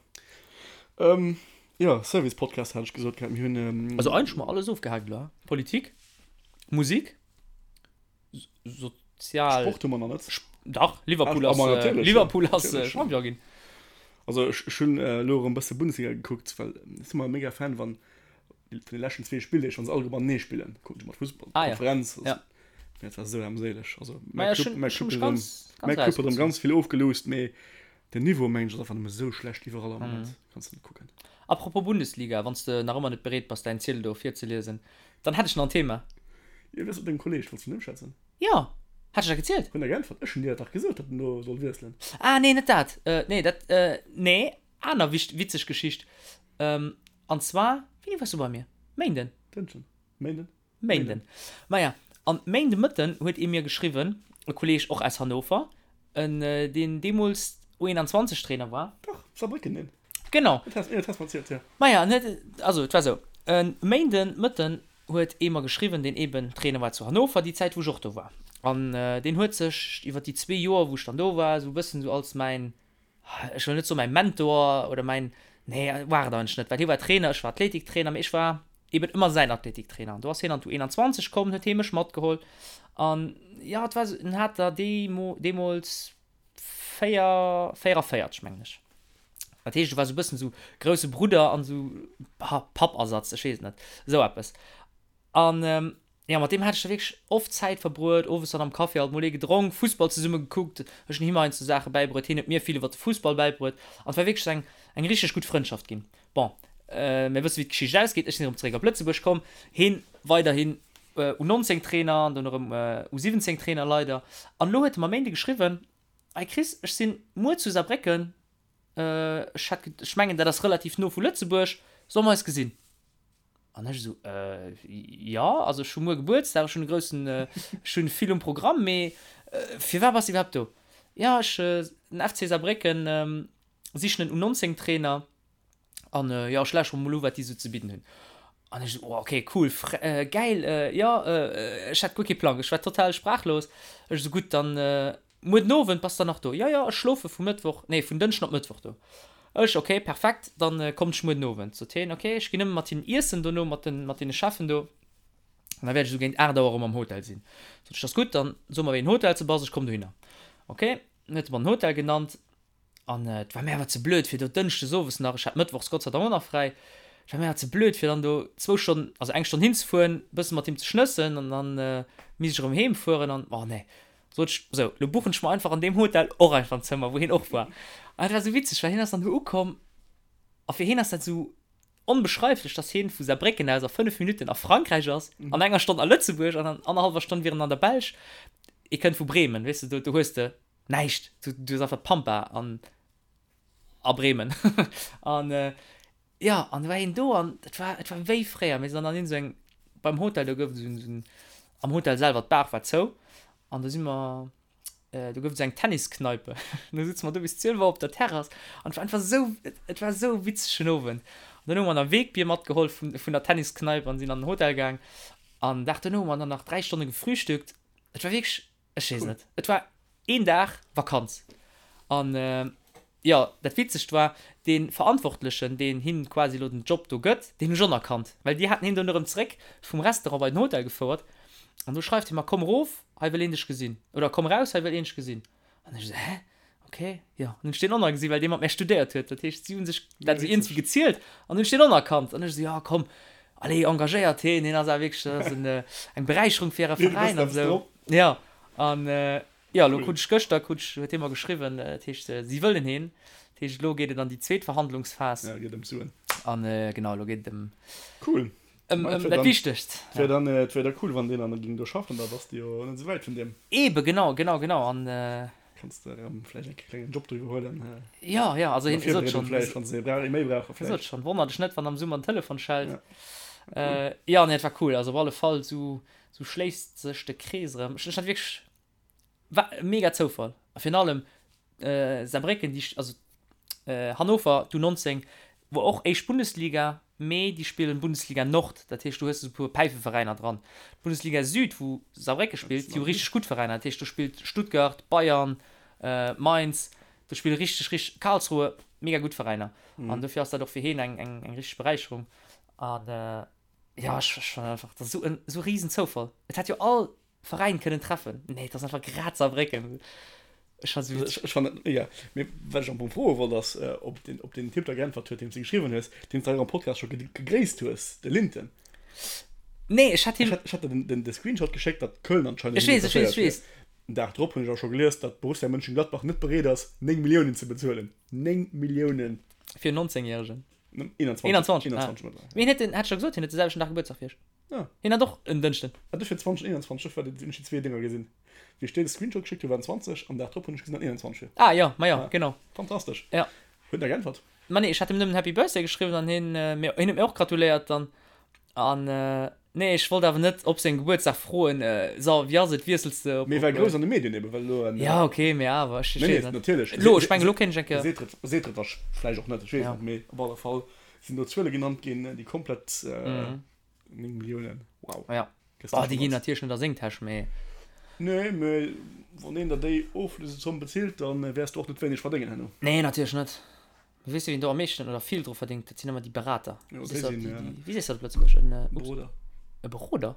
Ähm, ja, Service-Podcast hat ech gesot gehabt. Mir hunn, ähm, Also eigentlech hu mer alles ofgehaakt elo, Politik, Musik, sozial. Sport hu mer nach net. Dach, Liverpool ass, ah, äh, Liverpool ass äh, Champion ginn. Also ech, ech hunn äh, elo erëm bësse Bundesliga gekuckt, well ech si mer mega Fan wann vun de leschten zwee Spilldeeg, wann se all matenee spillen, kucken ech mat Fussball ah, ja. Konferenz. Ja. Dat war sou armséileg. Also mäi Club, mäi Club huet erëm, mäi Club huet erëm ganz vill ofgeloust, mee den Niveau mengen ech ass einfach nëmme sou schlecht iwwerall am Moment. Kanns de net kucken. Apropos Bundesliga, wann s de nach ëmmer net bereet bass däin Ziedel do virzeliesen, dann hätt ech nach en Thema. Jo, wéi ass et mat dengem Kolleg? Wollts du vun him schwätzen? Jo, hat ech dat gezielt? Hunn der geäntwert? Ech hunn dir dat dach gesot, datt en do soll wiesselen. Ah nee, net dat. Nee, dat, nee, aner witzeg Geschicht. An zwar, wéini waars du bei mir? Méinden? Dënschden. Méinden? Méinden. Maja, an Méinde Mëtten huet ee mir geschriwwen, e Kolleeg och aus Hannover, en deen deemools U21 Trainer war. Dach, Saarbrécken, deen. Genau. Dat has, dat has mer erzielt, jo. Maja, en huet, also et war esou, e Méinden Mëtten huet ee mer geschriwwen, deen eben Trainer war zu Hannover, déi Zäit wou ech och do war. An deen huet sech iwwer déi zwee Joer wou ech dann do war, esou e bëssen esou als mäin ech wëll net soen mäi Mentor oder mäin, nee war et eigentlech net, well hie war Trainer, ech war Athletiktrainer, mee ech war eben ëmmer säin Athletiktrainer. An do ass hien an d'U21 komm, huet hie mech matgeholl an jo, et war esou, en hat der deemools 4, 44 mengen ech. Dat heescht, e war esou e bëssen esou grousse Brudder an esou Pappersatz, ech weess et net, esou eppes. An jo, mat deem hat ech da wierklech oft Zäit verbruet, owes dann am Café alt mol ee gedronk, Fussball zesumme gekuckt, ech hunn him heiansdo Saache bäibruet, hien huet mir vill iwwer de Fussball bäibruet an et war wierklech eng, eng richteg gutt Frëndschaft ginn. Bon, mir wësse wéi d'Geschicht ausgeet, ech sinn erëm zeréck op Lëtzebuerg komm, hien weiderhin U19 Trainer an dunn erëm U17 Trainer leider. An elo huet e mer e Méinde geschriwwen, Hey Chris, ech sinn muer zu Saarbrécken, ech hätt, ech mengen dat ass relativ no vu Lëtzebuerg, solle mer eis gesinn? An ech esou, Äh, jo, also ech hu muer Gebuertsdag, ech hunn e groussen, ech hunn vill um Programm, mee firwat bass de iwwerhaapt do? Jo, ech, den FC Saarbrécken sichen en U19-Trainer an jo, ech lauschtere mol u wat déi esou ze bidden hunn. An ech esou, oh okay, cool, gäil, jo, ech hat guer kee Plang, ech war total sprachlos. Ech esou, gutt, dann Muer den Owend bass der nach do? Jo, jo, ech schlofe vu Mëttwoch, nee, vun Dënschden op Mëttwoch do. Ech, Ok, perfekt, dann kommt ech muer den Owend. Sot hien, Ok, ech ginn nëmme mat hinnen iessen dono, mat den, mat deene Cheffen do, an da wäert ech esou géint 8 Auer erëm am Hotel sinn. Sot ech, Dat ass gutt, dann so mer wéi en Hotel s de bass, ech komm dohinner. Ok, dann huet e mer den Hotel genannt. An et war mir awer ze blöd fir do dënschdes owes nach, ech hat mëttwochs Gott sei Dank och nach fräi, et war mir awer ze blöd fir dann do zwou Stonnen, also eng Stonn hinzefueren, e bësse mat him ze schnëssen an dann misst ech erëm heem fueren an, oh nee. Sot ech, sou, lo buchen ech mer einfach an deem Hotel och einfach en Zëmmer, wou hien och war. An et war sou witzeg, well hien ass dann do ukomm a fir hien ass dat sou onbeschreiflech, dass hien vu Saarbrécken aus a 5 Minutten a Frankräich ass, an enger Stonn a Lëtzebuerg an an annerhallwer Stonn wier en an der Belsch. E kënnt vu Bremen, weess de, do, do hues de Näischt, du, du hues einfach d'Pampa an a Bremen. An jo, an du war hien do an et war, et war wéi fréier. Mir sinn dann an iergend esou eng, beim Hotel, do gouf et esou en, esou en, am Hotel selwer, d'Bar war zou an do si mer, do gouf et esou eng Tenniskneipe. Do sutze mer do bis 12 Auer op der Terrass an et war einfach esou, et war esou e witzegen Owend. An dann hu mer nach Wegbier matgeholl vun, vun der Tenniskneipe an sinn an den Hotel gaang. An Dag duerno hu mer dann nach 3 Stonne gefrühstückt. Et war wierklech Ech weess net. Et war een Dag Vakanz. An. Jo, dat Witzegt war, dee Verantwortlechen, deen him quasi elo den Job do gëtt, deen hu ech och nach kannt, well déi haten hien dunn erëm zréck vum Restaurant bei den Hotel gefouert. An do schreift hie mer, Komm erof, hei wëll een dech gesinn. Oder komm eraus, hei wëll een dech gesinn. An ech esou, Hä? Ok, jo. An hunn ech deen och nach gesinn, well dee mat mär studéiert huet. Dat heescht, si hu sech dat esou iergendwéi gezielt an hunn ech deen och nach kannt. An ech esou, Jo, komm, allez, engagéiert heen, hien ass awer wierklech, dat ass eng Beräicherung fir äre Veräin an esou. Jo, an Jo, elo krut ech gëschter, krut ech, huet hie mer geschriwwen, dat heescht, si wëllen heen. Dat heescht, elo geet et an déi zweet Verhandlungsphas. Ja, geet ëm d'Suen. An genau, elo geet et ëm, Cool. ëm, ëm dat Wichtegst. Et wär dann, et wär da cool, wann deen dann ging do schaffen, da bass de jo net esou wäit vun deem. Eebe, genau, genau, genau. An. Kanns de erëm vläicht eng klengen Job do iwwerhuelen. Jo, jo, also hien sot schonn. Vläicht, wann se ee méi brauchen. Hie sot schonn, wonnert dech net, wann am Summer den Telefon schellt. Ja, jo, nee, et war cool. Also op alle Fall, esou, esou schléisst sech de Krees erëm. Ech, ech hat wierklech. War e mega Zoufall. A virun allem Saarbrécken, déi, also Hannover, d'U19, wor och éischt Bundesliga, mee déi spillen Bundesliga Nord, dat heescht do hues de sou e puer Päifeveräiner dran. D'Bundesliga Süd, wou Saarbrécke spillt, déi hu richteg gutt Veräiner, dat heescht do spillt Stuttgart, Bayern, Mainz, do spille richteg, richteg, Karlsruhe, mega gutt Veräiner. An dofir ass dat och fir heen eng, eng, eng richteg Beräicherung. An jo, ech, ech fannen einfach, dat ass esou en, esou e Risenzoufall. Et hätt jo all Veräin kënnen treffen. Nee, et ass einfach grad Saarbrécken. Ech fannen se witzeg. Ech fannen et mega. Mee wat ech am Fong froe wollt ass, ob den, ob den Typ da geäntwert huet, deem s de geschriwwen hues, deen s de hei am Podcast scho gegréisst hues, de Linton. Nee, ech hat him. Ech hat der den, de Screenshot geschéckt, datt Köln anscheinend Ech weess, ech weess, ech weess. Den Dag drop hunn ech awer scho gelies, datt Borussia Mönchengladbach net bereet ass, 9 Milliounen ze bezuelen. 9 Milliounen! Fir en 19 Järegen. 21. 21, ah. Mee hien huet den, hat ech der gesot, hien huet de selwechten Dag Gebuertsdag wéi ech. Ah. Hien hat och en Dënschden. Ah, dofir 2021, dofir hunn ech déi zwee Dénger gesinn. Wéi ech dir de Screenshot geschéckt hunn, waren 20, am Dag drop hunn ech gesinn, datt 21 wier. Ah jo, ma jo, genau. Fantastesch. Ja. Huet en da geäntwert? Ma nee, ech hat him nëmmen Happy Birthday geschriwwen an hien, mir, hien huet mir och gratuléiert dann. An nee, ech wollt awer net op sengem Gebuertsdag froen, so, wéi ass et, wiessels de op. Mee war grouss an de Medien eben, well elo en. Ja, ok, mee awer, ech weess net. Natierlech. Elo, ech mengen, elo kéint ech eng Kéier. Seet et, seet et vläicht och net, ech weess net, mee op alle Fall sinn do Zuele genannt ginn, déi komplett 9 Milliounen, wow. Ja, bah, déi ginn natierlech net a seng Täsch, mee. Nee, mee wann een der déi Oflösezomm bezilt, da wäers du och net wéineg verdéngen herno. Nee, natierlech net. Mee weess du, wien do am meeschten oder vill dru verdéngt? Dat sinn ëmmer déi Berater. Jo, déi sinn, déi, wéi sees du dat op Lëtzebuergesch? En, ups. Beroder. E Beroder?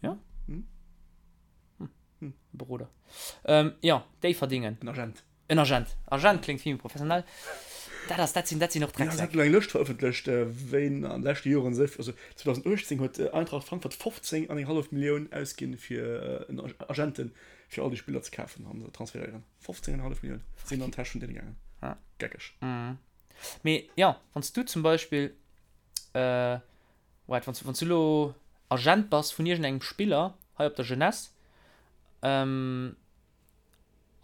Ja? Hm. Hm. E Beroder. Jo, déi verdéngen. En Agent. En Agent. Agent kléngt vill méi professionell. Dat ass, dat sinn, dat sinn och Drecksäck. Jo, se hat elo eng Lëscht verëffentlecht, wéin an de leschte Joren esou, also 2018 huet Eintracht Frankfurt 15 an eng hallef Millioun ausginn fir en Agenten, fir all déi Spiller ze kafen an ze transferéieren. 15 an eng hallef Millioun sinn an d'Täsch vun deene gaangen. Geckeg. Mee jo, wann s du zum Beispill, waart, wann s, wann s du elo Agent bass vun iergendengem Spiller hei op der Jeunesse,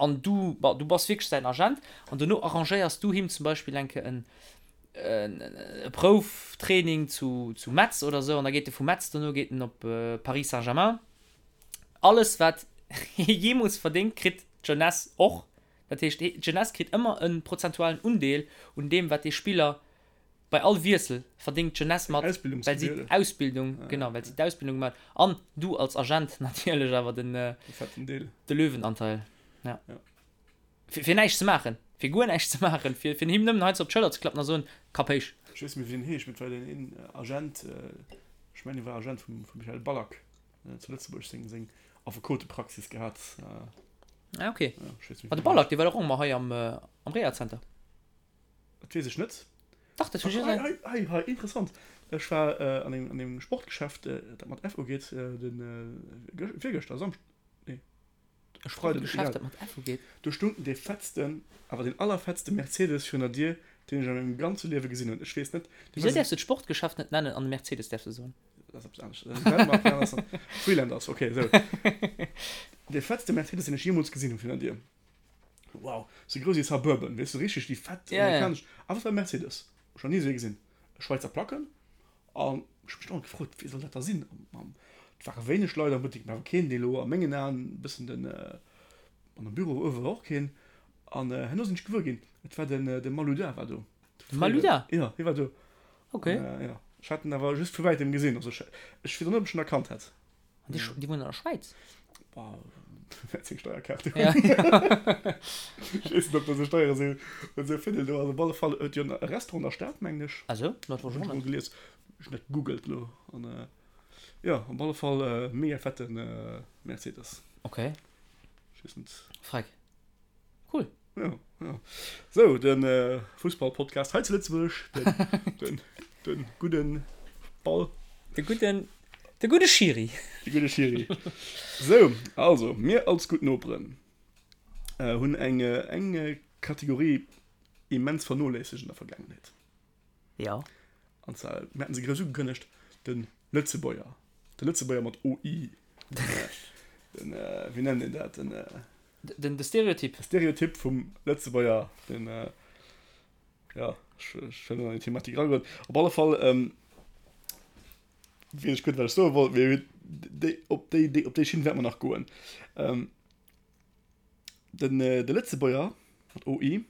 An du, bon, du bass wierklech säin Agent an dono arrangéiers du him zum Beispill eng Kéier en, e Prouftraining zu, zu Metz oder esou an da geet e vu Metz dono geet en op Paris Saint-Germain. Alles wat hie jeemools verdéngt, kritt d'Jeunesse och. Dat heescht, d'Jeunesse kritt ëmmer e prozentualen Undeel un deem wat dee Spiller Bei all Wiessel verdéngt d'Jeunesse mat, well si d'Ausbildung, genau, well si d'Ausbildung gemaach huet. An du als Agent natierlech awer den, de Löwenanteil. Ja. Fir, fir näischt ze maachen, fir guer näischt ze maachen, fir, fir him nëmmen heiansdo op d'Schëller ze klappen a soen, Kapp héich. Ech weess net méi, wéi deen heescht, mee et war deen een Agent, ech mengen, hie war Agent vum, vum Michael Ballack zu Lëtzebuerg, seng, seng Affekotepraxis gehat. Ah, okay. Ja, ech weess net méi, wéi deen heescht. Ma de Ballack, dee war doch och ëmmer hei am, am Rehazenter. Dat weess ech net. Dach, dat hunn ech Hei, hei, hei, hei, interessant. Ech war an engem, an engem Sportgeschäft, dat mat F ugeet, den, virgëschter, Samschden, nee, E Sportgeschäft, dat mat F ugeet? Do stung dee fettsten, awer deen allerfettste Mercedes virun der Dier, deen ech a mengem ganze Liewe gesinn hunn. Ech weess net, dee war Wisou däerfs du d'Sportgeschäft net nennen an de Mercedes däerfs du soen? Dat ass eppes anescht. Dat ass Freelanders, okay, esou. Dee fettste Mercedes, deen ech jeemools gesinn hunn virun der Dier. Wow, sou grouss wéi Suburban, weess du, richteg déi fett Ja, ja. amerikanesch, awer et war e Mercedes, ech nach ni esou ee gesinn, Schweizer Placken, an ech hu mech dauernd gefrot, wee soll dat da sinn, an et ware wéineg Leit am Buttek, mä awer keen, dee elo a mengen Aen e bëssen den, an am Büro uewe war och keen, an herno sinn ech gewuer ginn, et war den, de Malouda war do. De Malouda? Jo, hie war do. Ok. An, jo, ech hat en awer just vu wäitem gesinn, also ech, ech weess och net, ob ech en erkannt hätt. An déi, déi wunnen an der Schwäiz? Boah. Wäert seng Steierkaart hunn. Ja. Ech weess net, ob dat esou Steiere sinn, esou Fidel do ass. Op alle Fall huet jo e Restaurant an der Stad, mengen ech. Ah sou, dat wosst ech och net. Hunn ech mol gelies. Ech hunn dat gegoogelt elo. An jo, op alle Fall mega fette Mercedes. Okay. Ech weess net. Freck. Cool. Ja, ja. Sou, de Fussball-Podcast hei zu Lëtzebuerg, den, den, den gudden Ball. De gudden, de gudde Schiri. De gudde Schiri. Sou, also, mir als gutt Noperen hunn eng, eng Kategorie immens vernoléissegt an der Vergaangenheet. Ja. An zwar, mir haten se grouss ugekënnegt, de Lëtzebuerger. De Lëtzebuerger mat OI. Den, wéi nennt een dat? Den. Den, de Stereotyp. De Stereotyp vum Lëtzebuerger, den, ja, ech, ech wëll net an déi Thematik eragoen. Op alle Fall, weess ech guer net, wat ech soe wollt, mee déi, op déi, déi, op déi Schinn wäerte mer nach goen. Den, de Lëtzebuerger mat OI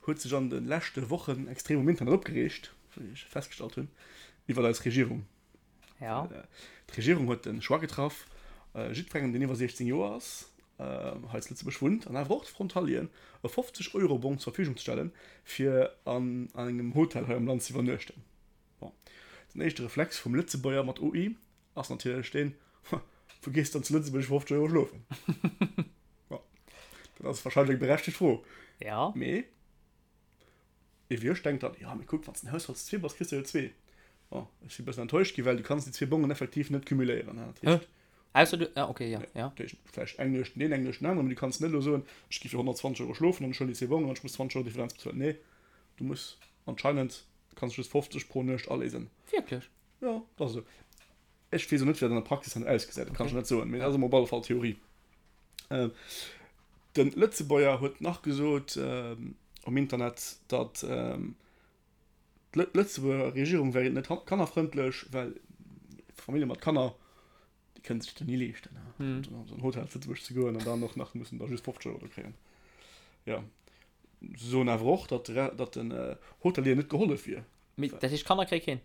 huet sech an de leschte Wochen extrem um Internet opgereegt, wéi ech festgestallt hunn, iwwer eis Regierung. Ja. D'Regierung huet de Choix getraff, jiddwerengem, deen iwwer 16 Joer ass, hei zu Lëtzebuerg wunnt an awer och de Frontalieren, e 50 Euro Bong zur Verfügung ze stellen, fir an engem Hotel hei am Land ze iwwernuechten. Bon, den éischte Reflex vum Lëtzebuerger mat OI ass natierlech deen, Wou gees de dann zu Lëtzebuerg fir 50 Euro schlofen? Bon, dat ass warscheinlech eng berechtegt Fro. Ja. Mee ee wéi ech denkt dann, Jo, mee kuck, wann s de en Haushalt zu zwee bass, kriss de jo zwee. Bon, ech si e bëssen enttäuscht gi, well du kanns déi zwee Bongen effektiv net cumuléieren. Dat heescht. Ausser du, ah, okay, ja, ja. Dat heescht, vläicht eng Nuecht den een, eng Nuecht den aneren, mee du kanns net elo soen, ech gi fir 120 Euro schlofen an ech huelen déi zwee Bongen an ech muss 20 Euro Differenz bezuelen. Nee, du muss anscheinend, kanns just 50 pro Nuecht aléisen. Wierklech? Jo, dat ass esou. Ech weess och net, wéi dat an der Praxis dann ausgesäit, dat kann ech net soen, mee dat ass emol op alle Fall Theorie. De Lëtzebuerger huet nach gesot um Internet, datt d'Lëtzebuerger Regierung wär net kannerfrëndlech, well Famillje mat Kanner, déi kënne sech dat ni leeschten, an esou en Hotel zu Lëtzebuerg ze goen an dann och nach mussen da just 50 Euro do kréien. Jo, se soen awer och, datt den Hotelier net gehollef wier. Mee dat heescht, Kanner kréie keen?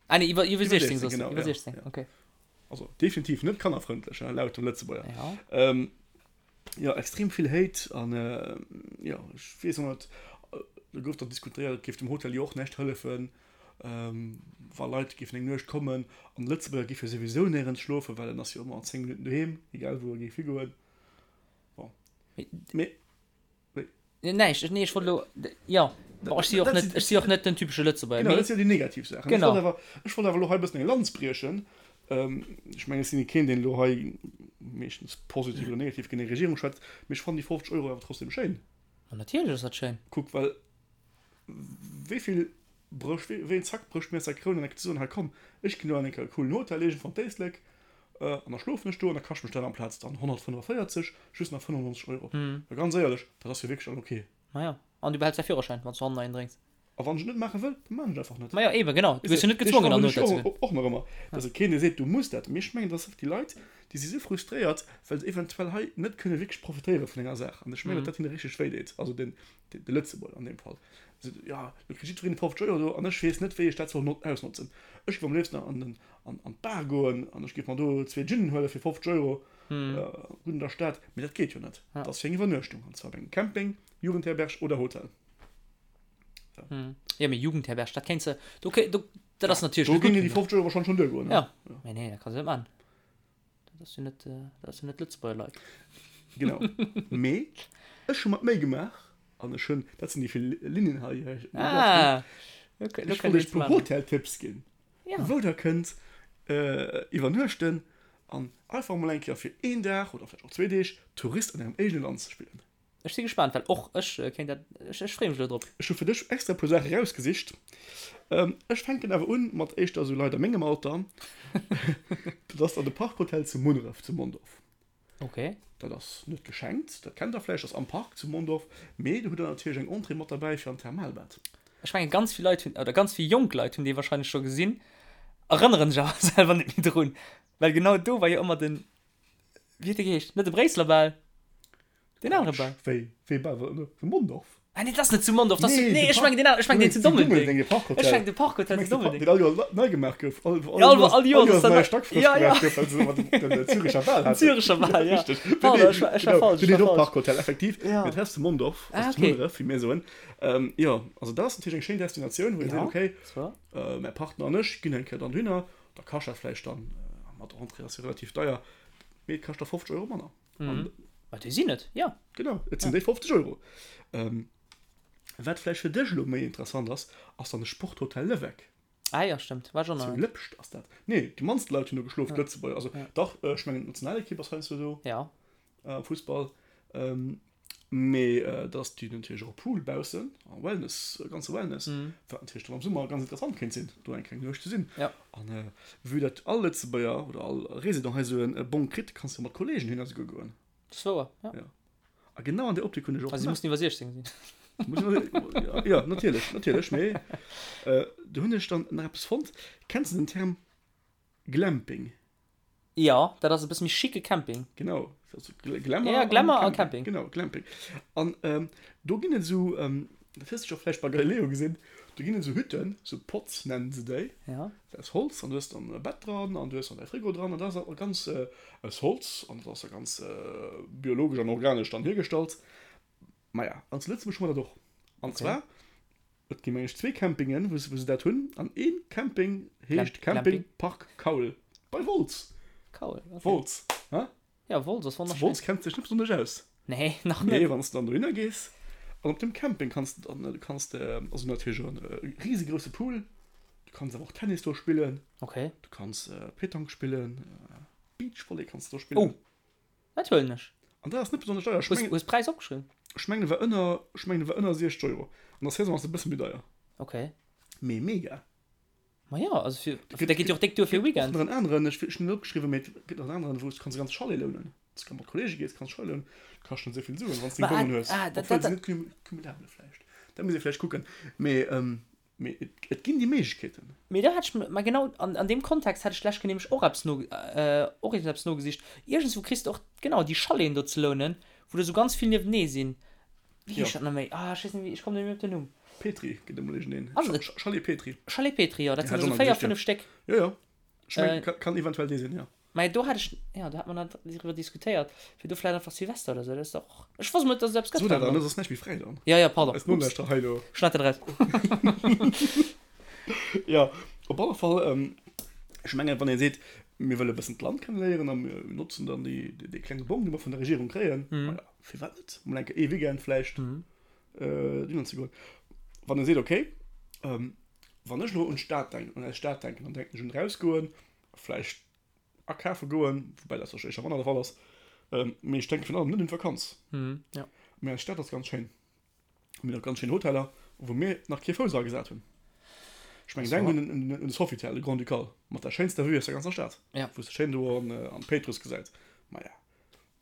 Ah nee, iwwer, iwwer 16, 16, genau, iwwer 16, ja. okay. Also definitiv net kannerfrëndlech, hein, laut dem Lëtzebuerger. Ja. Ähm, ja, extrem vill Hate an äh, ja, ech weess och net, äh, do gouf dann diskutéiert, et géif dem Hotel jo och näischt hëllefen, ähm, wa Leit géifen eng Nuecht kommen an de Lëtzebuerger géif jo souwisou néierens schlofen, well en ass jo ëmmer an 10 Minutten doheem, egal wou e géif higoen. Bon. Mee Näischt, nee, ech wollt elo, jo, bon, ech si och net, ech si och net den typesche Lëtzebuerger, mee. Genau, dat si jo déi negativ Saachen. Genau. Ech wollt awer, ech wollt awer elo hei e bëssen eng Lanz briechen. Ech mengen, ech sinn keen, deen elo hei meeschtens positiv oder negativ géint eng Regierung schwätzt, mee ech fannen déi 50 Euro awer trotzdem schéin. Ma natierlech ass dat schéin. Kuck, well wéi vill brécht, wéi een Zack brécht mir aus der Kroun an da ze soen, hei komm, ech ginn elo an enke coolen Hotel iergendwann d'Éislek, An da schlofen ech do an da kascht mech dat amplaz dann 145 just nach 95 Euro. Well ganz éierlech, dat ass jo wierklech dann ok. Majo, an du behäls däi Führerschäin, wann s du hannen een drénks. A wann ech et net maache wëll, da maachen ech et einfach net. Majo, eben, genau, du gëss jo net gezwongen an den Hotel ze goen. Och nach ëmmer, dass et keen dee seet, du muss dat. Mee ech mengen, dass déi Leit, déi si sou frustréiert, well se eventuell hei net kënne wierklech profitéiere vun enger Saach. An ech mengen, datt dat hinne richteg wéi deet, also den, de Lëtzebuerger an deem Fall. Se seet, jo, lo kritt jiddwereen 50 Euro do an ech weess net, wéi ech dat soll ausnotzen. Ech géif am léifsten an den an an d'Bar goen an ech géif mer do zwee Ginen huele fir 50 Euro, gutt an der Stad, mee dat geet jo net. Dat ass fir eng Iwwernuechtung, an zwar op engem Camping, Jugendherberg oder Hotel. So. Jo, mee Jugendherberg, dat kéints de, do kéint, do, dat ass natierlech Do géingen déi 50 Euro warscheinlech schonn duergoen, ne? Ja, mee nee, dat kanns de net maachen. Dat ass jo net, dat ass jo net Lëtzebuerger Leit. Genau. Mee ech hu mer d'Méi gemaach an ech hunn, dat sinn déi vill Linnen hei, Ah, ech wollt iech e puer Hoteltipps ginn. Ja. Wou der kënnt iwwernuechten an einfach mol eng Kéier fir een Dag oder vläicht och zwee Deeg Tourist an ärem eegene Land ze spillen. Ech si gespaant, well och ech kéint dat, ech ech freeë mech elo drop. Ech hu fir dech extra e puer Saache rausgesicht. Ech fänken awer un mat éischter esou Leit a mengem Alter. Dat ass dann de Park Hotel zu Munneref, zu Mondorf. Ok. Dat ass net geschenkt, dat kennt der vläicht, ass am Park zu Mondorf, mee do hutt der natierlech eng Entrée mat derbäi fir an d'Thermalbad. Ech mengen ganz vill Leit hunn, oder ganz vill jonk Leit hunn dee wahrscheinlech scho gesinn, erënneren sech awer selwer net méi drun, well genau do war jo ëmmer den, wéi huet dee geheescht, net de Bréisseler Bal, deen anere Bal. Wéi, wéi Bal war dat elo? Zu Mondorf? Ah nee, dat ass net zu Mondorf, dat ass zu, nee, ech mengen deen aneren, ech mengen deen zu Dummeldeng. Ech mengen de Park Hotel zu Dummeldeng. Deen all Joer nei gemaach gouf. All, all, all, all Joer ass nei Stack frësch gemaach gouf, well se ëmmer den Züricher Wal haten. Züricher Wal, ja. Richteg. Pardon, ech war, ech war falsch. Den heet och Park Hotel, effektiv. Mee dat ass zu Mondorf, also zu Munneref, wéi mir soen. Jo, also dat ass natierlech eng schéin Destinatioun, wou een seet, okay, mäi Partner an ech ginn eng Kéier dann dohinner. Da kascht dat vläicht dann, mat Entrée ass jo relativ deier, mee et kascht da 50 Euro manner. Mhm. Ma déi sinn et, jo. Genau, et sinn déi 50 Euro. Ähm, wat vläicht fir dech elo méi interessant ass, ass dann de Sporthotel Leweck. Ah jo, stëmmt, war ech och nach Zu net. Lëpscht ass dat. Nee, déi mannst Leit hunn do geschlof, d'Lëtzebuerger. Also Ja. dach, ech mengen d'Nationalekipp ass heiansdo do Ja. am Fussball. Ähm, mee da ass déi natierlech och e Pool baussen a Wellness, e ganze Wellness, wat natierlech dann am Summer ganz interessant kéint sinn, do eng kleng Nuecht ze sinn. Ja. An vue dat all Lëtzebuerger oder all Resident hei esou e Bong kritt, kanns de mat Kollegen hinner esouguer goen. Dat ass wouer, ja. Ja. A genau an där Optik hunn ech och Also si mussen iwwer 16 sinn. Ja, natierlech, natierlech. Mee do hunn ech dann nach eppes fonnt. Kenns de den Term Glamping? Jo, dat ass e bësse méi schicke Camping. Genau, also Glamour, ja, Glamour a Camping. Genau, Glamping. An ähm, do ginn et esou, ähm, dat hues du scho vläicht bei Galileo gesinn, do ginn et esou Hütten, esou Pods nennen se déi. Ja. Dat ass Holz an du hues dann e Bett dran an du hues dann däi Frigo dran an dat ass ganz äh, aus Holz an dat ass da ganz äh, biologesch an organesch dann hiergestallt. Maja, an zu Lëtzebuerg hu mer dat och. An okay. zwar, et gi meng ech zwee Campingen, wou se dat hunn. An een Camping heescht Camping Park Kaul bei Wolz. Kaul, okay. Wolz, hä? Ja, Wolz ass wonnerschéin. Wolz kennt sech net besonnesch aus. Nee, nach net. Nee, wann s de dann dohinner gees. An op dem Camping kanns de dann, du kanns de, also natierlech e risegrousse Pool, du kanns awer och Tennis do spillen. Okay. Du kanns Petanque spillen, Beachvolley kanns de do spillen. Oh, Dat huelen ech. An dat ass net besonnesch deier. Ech mengen. Hues d'Präis opgeschriwwen? Ech mengen e war ënner, ech mengen e war ënner 60 Euro. An der Saison ass e bësse méi deier. Ok. Mee mega. Ma jo, also fir, dat geet jo och déck duer fir e Weekend. Och nach en aneren, ech hunn net opgeschriwwen, mee et gëtt nach en aneren, wou s du kanns e ganze Chalet lounen. Wann s du mat Kollege gees, kanns Chalet lounen. Kascht net esou vill Suen, wann s de deng Bongen hues. Obwuel se net cumulabel vläicht. Dat muss ee vläicht kucken. Mee Mee et ginn déi Méiglechkeeten. Mee do hätt ech, ma genau an an deem Kontext hätt ech d'lescht Kéier nämlech och eppes no, och iergendeppes nogesicht. Iergendswou kriss de och, genau, déi Chaleten do ze lounen, wou der esou ganz vill niewenee sinn. Wéi heescht dat nach méi? Ah, ech weess net méi, ech kommen net méi op den Numm. Petri gëtt emol iergendeen. Ass et? Chalet Petri. Chalet Petri, jo, dat sinn esou 4, 5 Stéck. Jo, jo. Ech mengen, kann eventuell dee sinn, jo. Mä do hat ech, jo, do hat mer nach driwwer diskutéiert, fir do vläicht einfach Silvester oder sou, dat ass dach och, ech wosst mol net, dass et eppes gëtt. So dat dann, ass näischt méi fräi dann. Jo, jo, pardon. Eis Nolauschterer hei elo. Schneid dat eraus. Jo, op alle Fall, ech mengen, wann ee seet, mir wëlle e bëssen d'Land kenneléieren a mir notzen dann déi, dee klenge Bong, dee mer vun der Regierung kréien, maja, firwat net mol eng Kéier ee Weekend vläicht dohinner ze goen. Wann ee seet, okay, wann ech elo un d'Stad denken, un eis Stad denken, dann denken ech un erausgoen, vläicht akafe goen, woubäi dat warscheinlech éischter manner de Fall ass, mee ech denke virun allem net un d'Vakanz. Mee eis Stad ass ganz schéin. Mir hunn och ganz schéin Hoteller, wou mir nach kee Fouss eragesat hunn. Ech mengen, denk un de Sofitel, de Grand-Ducal, mat der schéinster Vue aus der ganzer Stad, wou s de schéin do an d'Péitruss gesäit. Maja,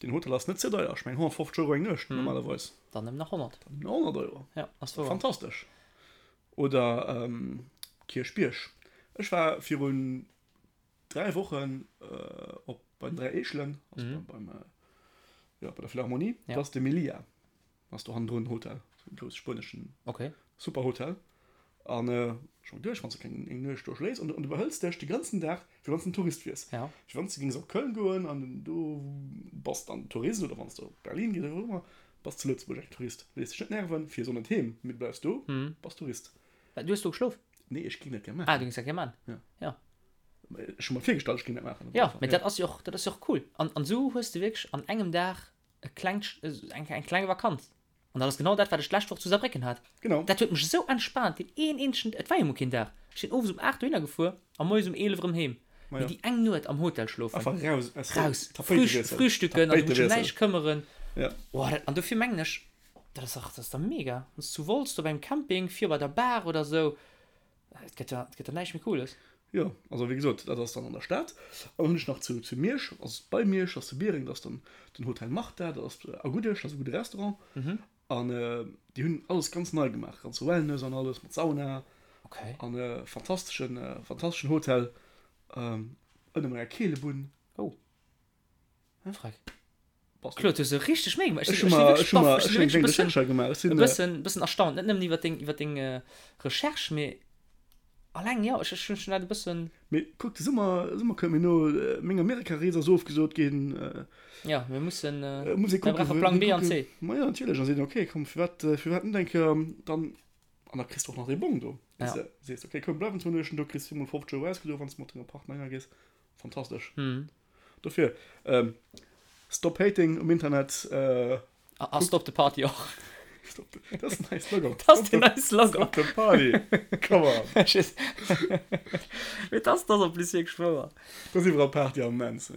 deen Hotel ass net ze deier, ech mengen 150 Euro eng Nuecht normalerweis. Dann nëmmen nach 100. Dann nëmmen nach 100 Euro. Ja, ass wouer. Fantastesch. Oder Kierchbierg. Ech war virun 3 Wochen op bei den 3 Eechelen, also mhm. beim, beim ja, bei der Philharmonie. Ja. Das ist de Melia. Das ist do hannendrun Hotel. So ein groß spueneschen okay. super Hotel. An äh, schon duerch, wann du keng eng Nuecht do schléis an, an du behëls dech de ganzen Dag, fir wann du en Tourist wiers. Ja. Fir wann du gings op Köln goen an du bass dann Tourist oder wann du op Berlin gees oder wou ëmmer, bass zu Lëtzebuerg eng Tourist. Léiss dech net nerven, fir so net heem, mee du bleifs do, mhm. bass Tourist. Du hues do geschlof? Nee, ech ging dat gär maachen. Ah, du gings dat gär maachen? Ja. Ja. Ech hu mer virgestallt, ech ging dat maachen. Ja, mee dat ass jo och, dat ass jo och cool. An, an esou hues de wierklech an engem Dag e klengt, eng, eng kleng Vakanz. An dat ass genau dat, wat ech d'lescht Woch zu Saarbrécken hat. Genau. Dat huet mech esou entspaant, deen een eenzegen, et war jo mol keen Dag. Ech sinn owes um 8 dohinner gefuer a moies um 11 erëm heem. Ma Mee jo. déi eng Nuet am Hotel schlofen. Einfach raus aus der Raus, Tapéitewiessel. frühstücken an du musst dech ëm Tapéitewiessel. näischt këmmeren. Ja. Oh, dat, an dofir mengen ech, Dat ass dach, dat ass dach mega. Wann s du zu Wolz do beim Camping, vir bei der Bar oder sou, et gëtt jo, et gëtt jo näischt méi Cooles. Jo, also wéi gesot, dat ass dann an der Stad. An dann hunn ech nach zu, zu Miersch, also bei Miersch, ass zu Biereng, dat ass dann den Hotel Martha, dat ass a Guddesch, dat ass e gudde Restaurant. An déi hunn alles ganz nei gemaach, ganz Wellness an alles, mat Sauna. Okay. An e fantasteschen, fantasteschen Hotel, ënner menger Keelebunn. Oh. Freck. Claude, du hues e richteg Méi gemaach. Ech hu mer, ech hu mer, ech hunn eng kleng Recherche gemaach. Ech sinn. E bëssen, bëssen erstaunt, net nëmmen iwwer deng, iwwer deng Recherche, mee alleng, jo, ech, ech hunn dat e bëssen. Mee kuck, de Summer, Summer kënnt, mee no meng Amerika-Rees ass ofgesot ginn. Jo, mir mussen, Muss ee mir brauche Plang B an C. Ma jo, natierlech, a seet, okay, komm, firwat, firwat net eng Kéier dann, an da kriss de och nach dee Bong do. Ja. Sees, okay, komm, bleiwen zwou Nuechten do, kriss viermol 50 Euro ausgedo, wann s de mat denger Partner hinner gees. Fantastesch. Dofir, Stop Hating um Internet. A Stop the Party och. Stop the, dat ass den neie Slogan. Dat ass den neie Slogan. Stop the Party. Come on. Mee dat ass en plus wierklech wouer. Dat ass iwwerall Party am Moment.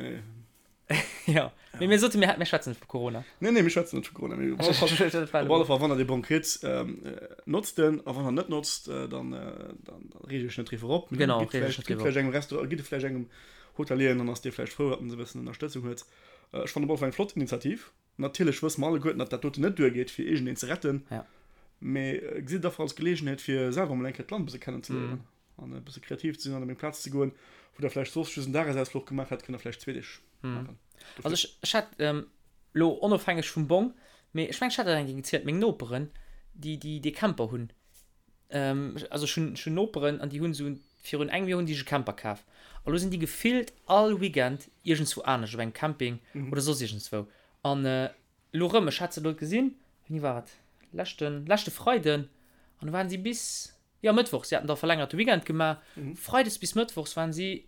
Jo. Mee mir soten, mir schwätzen net vu Corona. Nee, nee, mir schwätzen net vu Corona. Mee op alle Fall, wann der dee Bong kritt, notzt en. A wann der net notzt, dann reegt iech net driwwer op. Genau, reegt iech net driwwer op. Gitt vläicht engem Restaurant, gitt e vläicht engem Hotelier an dann ass dee vläicht frou, datt en esou e bëssen Ënnerstëtzung huet. Ech fannen op alle Fall eng flott Initiativ. Natierlech wësse mer alleguerten, datt dat doten net duergeet, fir iergendeen ze retten. Mee gesitt et einfach als Geleegenheet, fir selwer emol eng Kéier d'Land e bësse kennenzeléieren an e bësse kreativ ze sinn an op eng Plaz ze goen, wou der vläicht soss just en Dagesausfluch gemaach hätt, kënnt der vläicht zwee Deeg maachen. Also ech, ech hat elo onofhängeg vum Bong, mee ech mengen, ech hat dat eng Kéier gezielt, meng Noperen, déi, déi dee Camper hunn, Also ech hunn, ech hunn Noperen an déi hunn esou, virun engem Joer hunn déi sech e Camper kaf. A lo sinn déi gefillt all Weekend iergendswou anescht, op engem Camping oder soss iergendswou. An elo erëm, ech hat se elo gesinn, wéini war et, leschten, leschte Freiden, an do waren si bis, jo Mëttwochs, si haten da verlängerte Weekend gemaach, Freides bis Mëttwochs waren si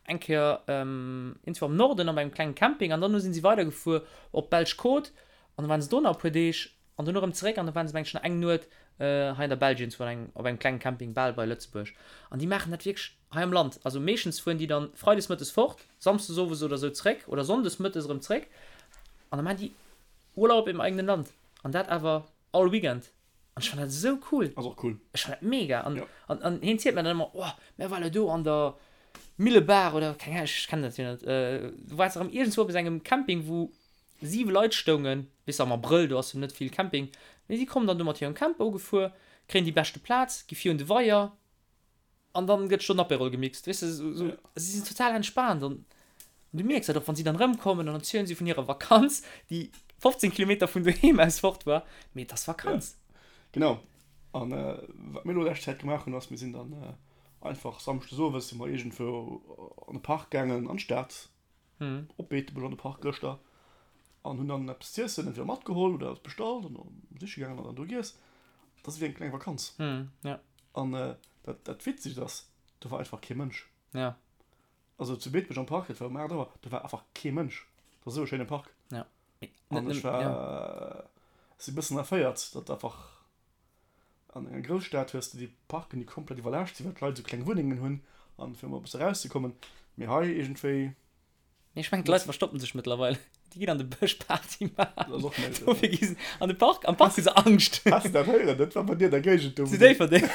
eng Kéier iergendswou am Norden op engem klengen Camping an dann sinn si weidergefuer op d'belsch Côte an da waren se do nach e puer Deeg an dono erëm zeréck an da waren se mengen ech nach eng Nuet hei an der Belsch iergendswou an engem op engem klengen Camping bal bei Lëtzebuerg an déi maachen dat wierklech hei am Land. Also meeschtens fueren déi dann freides mëttes fort, samsdes owes oder sou zeréck oder sonndes mëttes erëm zeréck an da maachen déi Urlaub im eigenen Land an dat awer all Weekend an ech fannen dat esou cool. Ass och cool. Ech fannen dat mega an an an hien zielt mir dann ëmmer, oh mär ware do an der Millebaach oder keng Ahnung, ech kennen dat jo net, do war se erëm iergendswou op esou engem Camping wou 7 Leit stoungen, weess de am Abrëll, do ass jo net vill Camping, mee si kommen dann do mat hirem Camper ugefuer, kréien déi beschte Plaz, gi vir un de Weier an dann gëtt scho den Apérol gemixt, weess de, esou, si sinn total entspaant an du mierks dat och, wann si dann erëmkommen, dann erzielen si vun hirer Vakanz, déi 15 Kilometer vun doheem aus fort war, mee et ass Vakanz. Genau, an wat mir elo lescht Zäit gemaach hunn, ass, mir sinn dann einfach samschdes owes si mer iergendwou an de Park gaangen, an d'Stad, Op Beetebuerg an de Park gëschter an hunn dann eppes z'iessen entweder matgeholl oder eppes bestallt an dann siche gaangen an dann do giess. Dat ass ewéi eng kleng Vakanz. An dat, dat Witzegt ass, do war einfach kee Mënsch. Also zu Beetebuerg am Park, dat war um 8 Auer, do war einfach kee Mënsch. Dat ass esou e schéine Park. An ech war, si bëssen erféiert, datt einfach An enger Grousstad hues de déi Parken, déi komplett iwwerlaascht sinn, well d'Leit esou kleng Wunnengen hunn an fir emol e bësse erauszekommen. Mee hei iergendwéi. Nee, ech mengen d'Leit verstoppen sech mëttlerweil. Déi ginn an de Bësch Party maachen. Dat ass och méiglech. Dofir gi se an de Park. Am Park hu se Angscht. Has de dat héieren? Dat war bei dir an der Géigend do. Zu Déifferdeng.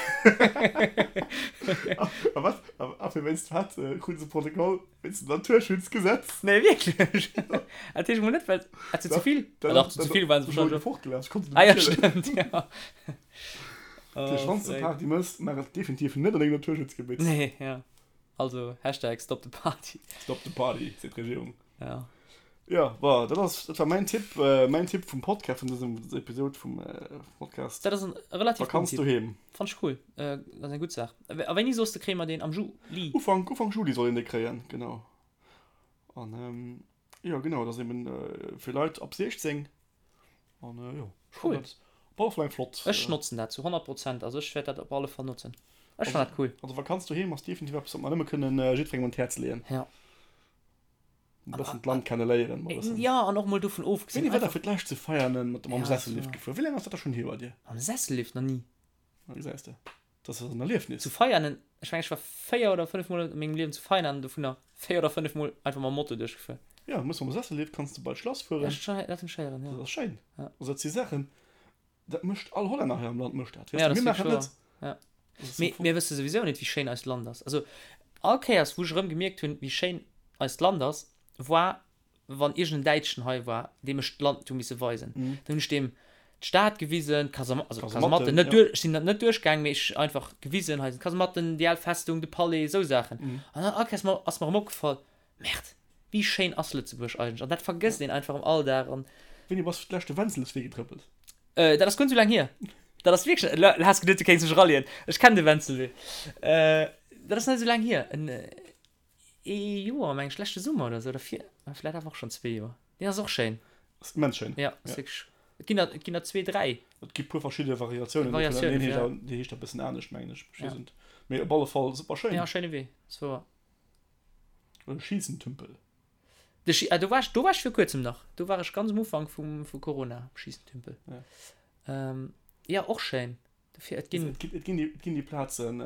A wat? A fir wéinst wat kruten se Protokoll? Wéinst dem Naturschutzgesetz? Nee, wierklech? Dat heescht mol net, well hat se ze vill? Ah dach, ze vill waren se wahrscheinlech. Fortgelaf, ech konnt se net méi zielen. Ah ja, stëmmt, ja. Dat heescht, wann s de Party mëss, maach et definitiv net an engem Naturschutzgebitt. Nee, ja. Also, Hashtag stop the party. Stop the party, seet d'Regierung. Ja. Jo, bon, dat ass, dat war mäin Tipp, mäin Tipp vum Podcast, vun dësem Episod vum Podcast. Dat ass en relativ gudden Vakanz Tipp. doheem. Fannt ech cool. Dat ass eng gutt Saach. A wéini soss de kréie mer deen? Am Juli? Ufank, Ufank Juli soll een dee kréien, genau. An jo, genau, dat ass eben fir Leit ab 16. An jo, ech Cool. fannen dat op alle Fall eng flott. Ech notzen dat zu 100 Prozent. Also ech wäert dat op alle Fall notzen. Ech fannen dat cool. Also Vakanz doheem ass definitiv eppes, wat mer nëmme kënnen jiddwerengem un d'Häerz leeën. Ja. E bëssen d'Land kenne léieren. Mol bëssen. Ja, an och mol dovun ofgesinn. Wéini war der fir d'lescht zu Veianen mat mam Sessellift gefuer? Wéi laang ass dat da schonn hier bei dir? Mam Sessellift nach ni. Na gesäis de, dat ass en Erliefnis. Zu Veianen, ech mengen ech war 4 oder 5 mol a mengem Liewen zu Veianen an dovunner 4 oder 5 mol einfach mam Moto duerchgefuer. Ja, muss mam Sessellift kanns de bei d'Schlass fueren. Ja, dat hunn ech héieren, ja. Dat ass schéin. Ja. Also dat si Saachen, dat mécht all Hollänner hei am Land mécht dat. Ja, Weess de, dat mir ass maachen wierklech dat net. wahr. Ja. Dat ass Mee am Fong. mir wësse souwisou net, wéi schéin eist Land ass. Also all Kéiers, wou ech erëm gemierkt hunn, wéi schéin eist Land ass, war wann iergend en Däitschen hei war, deem ech d'Land hu misse weisen. Dann hunn ech deem d'Stad gewisen, d'Kasam also d'Kasematten, net duerch, ech sinn net duerchgaang, mee ech einfach gewisen, hei sinn d'Kasematten, déi al Festung, de Palais, esou Saachen. An dann all Kéiers ass mer erëm opgefall, Merde! Wéi schéin ass Lëtzebuerg eigentlech? An dat vergësst een einfach am Alldag. An. Wéini bass du d'lescht de Wenzelswee getrëppelt? Dat ass guer net sou laang hier. Dat ass wierklech, lo has geduet du kéints mech rallieren. Ech kennen de Wenzelwee. Dat ass net sou laang hier, en ee Joer meng ech, leschte Summer oder sou, oder vir, vläit awer och schonn zwee Joer. Deen ass och schéin. Ass immens schéin. Ja, ass wierklech, et ginn der, et ginn der zwee, dräi. Et gi puer verschidde Variatiounen dovun, an een heescht awer, dee heescht e bëssen anescht mengen ech, ech weess et net. Mee op alle Fall super schéin. Ja, schéine Wee, ass wouer. Oder Schiessentümpel. De Schi, ah, do war ech, do war ech vir kuerzem nach. Do war ech ganz um Ufank vum, vu Corona am Schiessentümpel. Ja. Ähm, ja, och schéin. Dofir, et ginn. Et ginn, et ginn déi, et ginn déi Plazen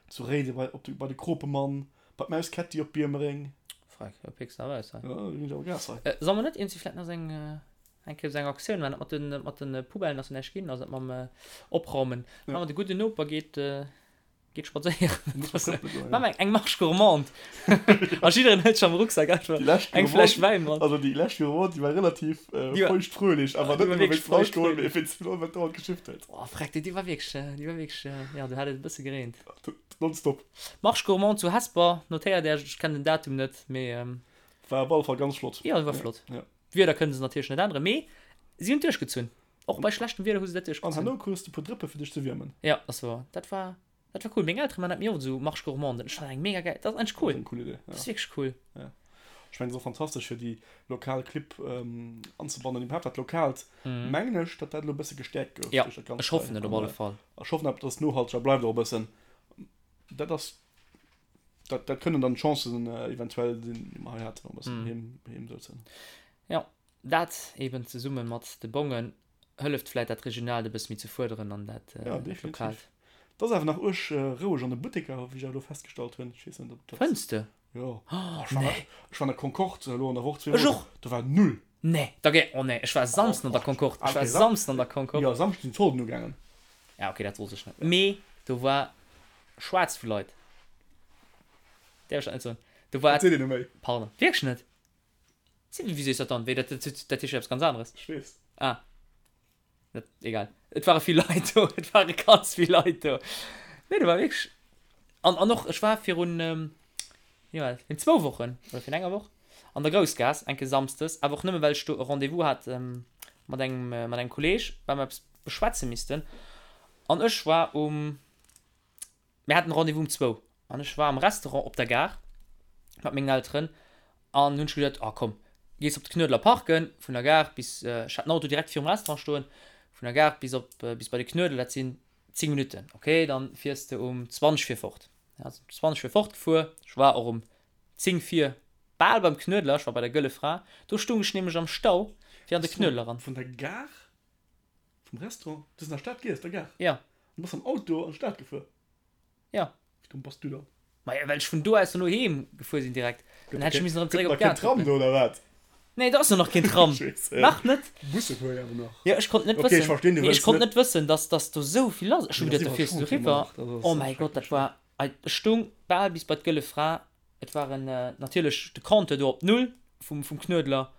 zu Réiden, bei, op de, bei de Kropemann, bei d'Maus Ketti op Biermereng. Freck, da pécks de awer aus hei. Ja, do ginn ech awer Gas hei. Äh, soll mer net iergendwéi vläit nach esou eng, eng Kéier esou eng Aktioun maachen, dat mat den, mat den Poubellen ass jo näischt ginn, also dat mam Opraumen. Ja. Maache mer de gudden Noper geet, Geet spadséieren. Muss man trëppelen goen, Maache mer eng Marche gourmande. A jiddereen hëlt sech am Rucksak einfach Déi lescht eng Fläsch Gourmande, Wäin mat. also déi lescht Gourmande, déi war relativ Déi war, feuchtfröhlich, awer déi net war nëmme wierklech wéinst dem Alkohol, feuchtfröhlich. mee wéinst dem wat dauernd geschifft huet. Oh freck, déi war wierklech, déi war wierklech, jo, do hat et e bësse gereent. Nonstop. Marche gourmande zu Hesper, notéiert Iech, ech kennen den Datum net, mee. War op alle Fall ganz flott. Jo, war flott. Ja. D'Wieder kënne se natierlech net änneren, mee si hunn et duerchgezunn. Och bei schlechtem Wieder hu se dat An duerchgezunn. herno krus de puer Drëppe fir dech ze wiermen. Ja, ass wouer. Dat war, dat war cool. Meng Eltere man dat méi oft esou, Marche gourmande. Ech fannen eng mega gäil, dat ass eigentlech Dat cool. ass eng cool Idee, Dat ja. ass wierklech cool. Ja. Ech mengen, et ass och fantastesch fir déi lokal Clibb anzebannen, iwwerhaapt dat Lokaalt, mengen ech, datt dat elo e bësse gestäerkt gouf Ja, duerch dat Ganzt ech hei. hoffen et op An alle Fall. ech hoffen awer, datt et nohalteger bleift och e bëssen. Dat ass, dat, dat kënnen dann d'Chancen eventuell sinn, déi mer hei haten, och e bëssen heem, heem souzen. Ja. Dat eben zesumme mat de Bongen hëlleft vläit dat Regionaalt e bësse méi ze fuerderen an dat Ja, definitiv. Lokaalt. Et ass awer nach uerg roueg an de Butteker, wéi ech awer elo festgestallt hunn. Ech weess net, ob dat. Fënns de? Jo. Oh, Ech war, nee. ech war an der Concorde elo an der Woch Ech zweemol. och. Do war null. Nee, da gé, oh nee, ech war Samsden an der Concorde. Ah, Ech war okay, Sam, Samsden an der Concorde. jo, Samschden sinn d'Solden ugaangen. Ja, okay, dat wosst ech net. Mee do war schwaarz vu Leit. Däerf ech dat net soen? Do war. Dat seet een net méi. Pardon. Wierklech net? Wéi sees dat dann? Wéi, dat, dat, dat heescht jo eppes ganz aneres. Ech weess. Ah. Dat, egal. Et ware vill Leit do. Et ware ganz vill Leit do. Nee, do war wierklech. An, an och, ech war virun, wéi war dat, virun zwou Wochen oder virun enger Woch an der Groussgaass, eng Kéier samsdes, awer och nëmme well ech do e Rendez-vous hat mat engem, mat engem Kolleeg, well mer eppes beschwätze missten. An ech war um. Mir haten Rendez-vous um zwou an ech war am Restaurant op der Gare mat mengen Elteren an hunn ech geduet, ah komm, gees op de Knuedler parken, vun der Gare bis, ech hat den Auto direkt virum Restaurant stoen, vun der Gare bis op, bis bei de Knuedler, dat sinn 10 Minutten, ok, dann fiers de um 20 vir fort. Ja, sinn um 20 vir fort gefuer, ech war och um 10 vir bal beim Knuedler, ech war bei der Gëlle Fra, do stung ech nämlech am Stau fir an de Knuedler eran. Vun der Gare? Vum Restaurant? Du bass an der Stad giess, der Gare? Ja. Du bass mam Auto an d'Stad gefuer? Ja. Wéi domm bass du dann? Maja, well ech vun do aus dono heem gefuer sinn direkt. Dann hätt ech missen erëm zeréck op Gëtt nach keen d'Gare Tram do, oder wat? Nee, do ass jo nach keen Tram. Ech weess, äh, Nach net. Busse fuere jo awer nach. Jo, ech konnt net Okay, ech wëssen. verstinn, du Nee, ech wëlls konnt net. net wëssen, dass, dass do sou vill lass. Ech hu Mee dat geduet, ass do fiers du iwwerall schonn eriwwer. nach. Dat ass Oh mäi Gott, dat schrecklech. war, ech stung bal bis bei d'Gëlle Fra. Et waren natierlech de Compteur do op Null vum, vum Knuedler.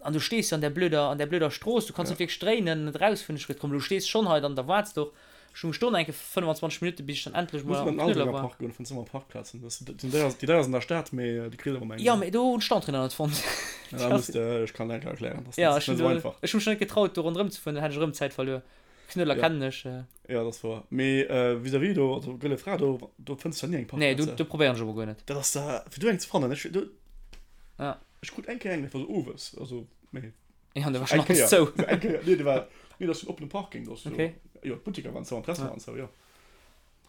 An du stees jo an där blöder, an där blöder Strooss, du kanns net wierklech dréinen, net erausfueren. Ech gesot, komm, du stees schonn hei, dann da waarts de och. Ech stung Stonn, enke 25 Minutten, bis ech dann endlech Muss mol an am den Knuedler Aldenger war. Park goen, fënns ëmmer Parkplazen. Dat sinn déi, déi deier sinn an der Stad, mee déi kriss awer ëmmer eng. Jo, mee do hunn ech d'Entrée nach net fonnt. Ja, da muss de, ech kann der enke erklären, dat ass Ja, net ech hunn esou do, einfach. ech hu mech net getraut, do ronderëm ze fueren, dann hätt ech erëm Zäit verluer. Knuedler Ja. kennen ech. Ja, dat ass wouer. Mee vis-à-vis do, also Gëlle Fra, do, do fënns de ni eng Nee, do, Parkplaz. do probéieren ech awer guer net. Dat ass da, fir do eng ze fannen, ech, do, Ja. Ech krut eng Kéier eng, dat war sou owes, also mee Ja, an da war schon eng alles Kéier, zou. eng Kéier, nee, dat war, nee, dat ass en oppene Parking, do ass jo, Okay. jo, d'Butteker waren zou an d'Restaurant waren zou, jo.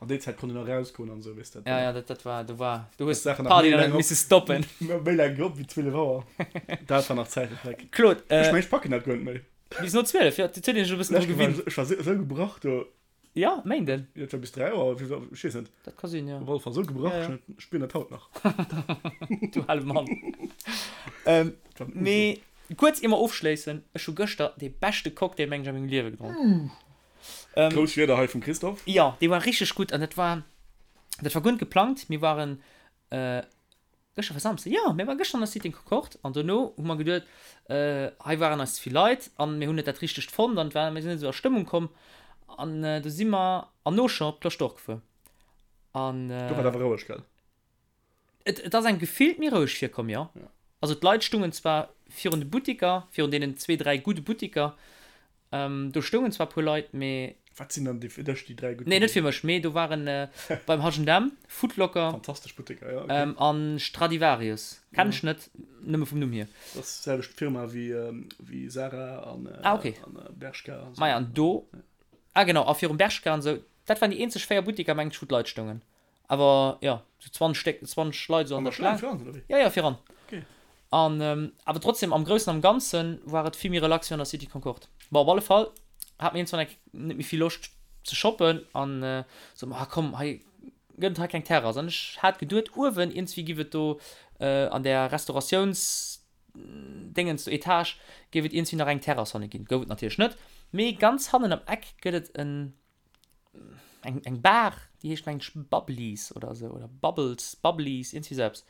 An déi Zäit konnt een nach erausgoen an esou, weess de. Ja, ja, dat, dat war, do war, du hues Sachen nach d'Party méi dann laang net op. misse stoppen. Méi laang op wéi 12 Auer. Dat war nach Zäiten, Dreck. Claude, Ech äh, mengen, ech packen dat guer net méi. bis no 12, jo, dat huet een sech e bëssen dru Lescht Woch war gewinnt. ech war esou gebrach do. Ja, Méinden. Jo, et war bis 3 Auer, wéi war, ech weess net. Dat ka sinn, jo. Op alle Fall esou gebrach, Ja, ja. ech spieren dat haut nach. Du hale Mann. ähm, Dat war den Uso. mee kuerz ier mer ofschléissen, ech hu gëschter dee beschte Cocktail, meng ech, a mengem Liewe gedronk. Ähm, Grouss Wierder hei vum Christophe. Jo, dee war richteg gutt an dat war, dat war guer net geplangt. Mir waren, äh, Gëschter war Samsden, jo, mir ware gëschter an der Cité Concorde an dono hu mer geduet, hei waren eis ze vill Leit an mir hunn net dat Richtegt fonnt an war, mir sinn net esou a Stëmmung komm an du si mer an Auchan op d'Cloche d'Or gefuer an. Do war et awer roueg, gell? Et, et ass engem gefillt méi roueg virkomm, jo. Also d'Leit stungen zwar virun de Buttiker, virun deenen zwee, dräi gudde Buttiker, do stoungen zwar e puer Leit, mee. Wat sinn dann déi fir dech déi dräi gutt Nee, net fir mech, mee do waren beim H&M, Foot Locker. Fantastesch Buttiker, jo, okay. An Stradivarius, kennen ech net, nëmme vum Numm hier. Dat ass d'selwecht Firma wéi wéi Zara an ah, okay. an Bershka an esou. Maja, an do, ah genau, a virum Bershka an esou, dat waren déi eenzeg 4 Buttiker, mengen ech, wou d'Leit stoungen. Awer jo, sou 20 Stéck, 20 Leit sou an der Schlaang. An der Schlaang viran, oder wéi? Jo, jo, viran. Okay. An, awer trotzdem, am Groussen am Ganze war et vill méi relax wéi an der City Concorde. Bon, op alle Fall hat mir iergendwann eng net méi vill Loscht ze shoppen an sot mer, ah komm, hei gëtt et hei keng Terrass. An ech hat geduet, uewen iergendswéi giff et do an där Restauratiouns Déngens do, Etage, géif et iergendswéi nach eng Terrass hanne ginn. Gouf et natierlech net, mee ganz hannen am Eck gëtt et en eng, eng Bar, déi heescht mengen ech Bubblies oder esou, oder Bubbles, Bubblies, iergendwéi esou eppes.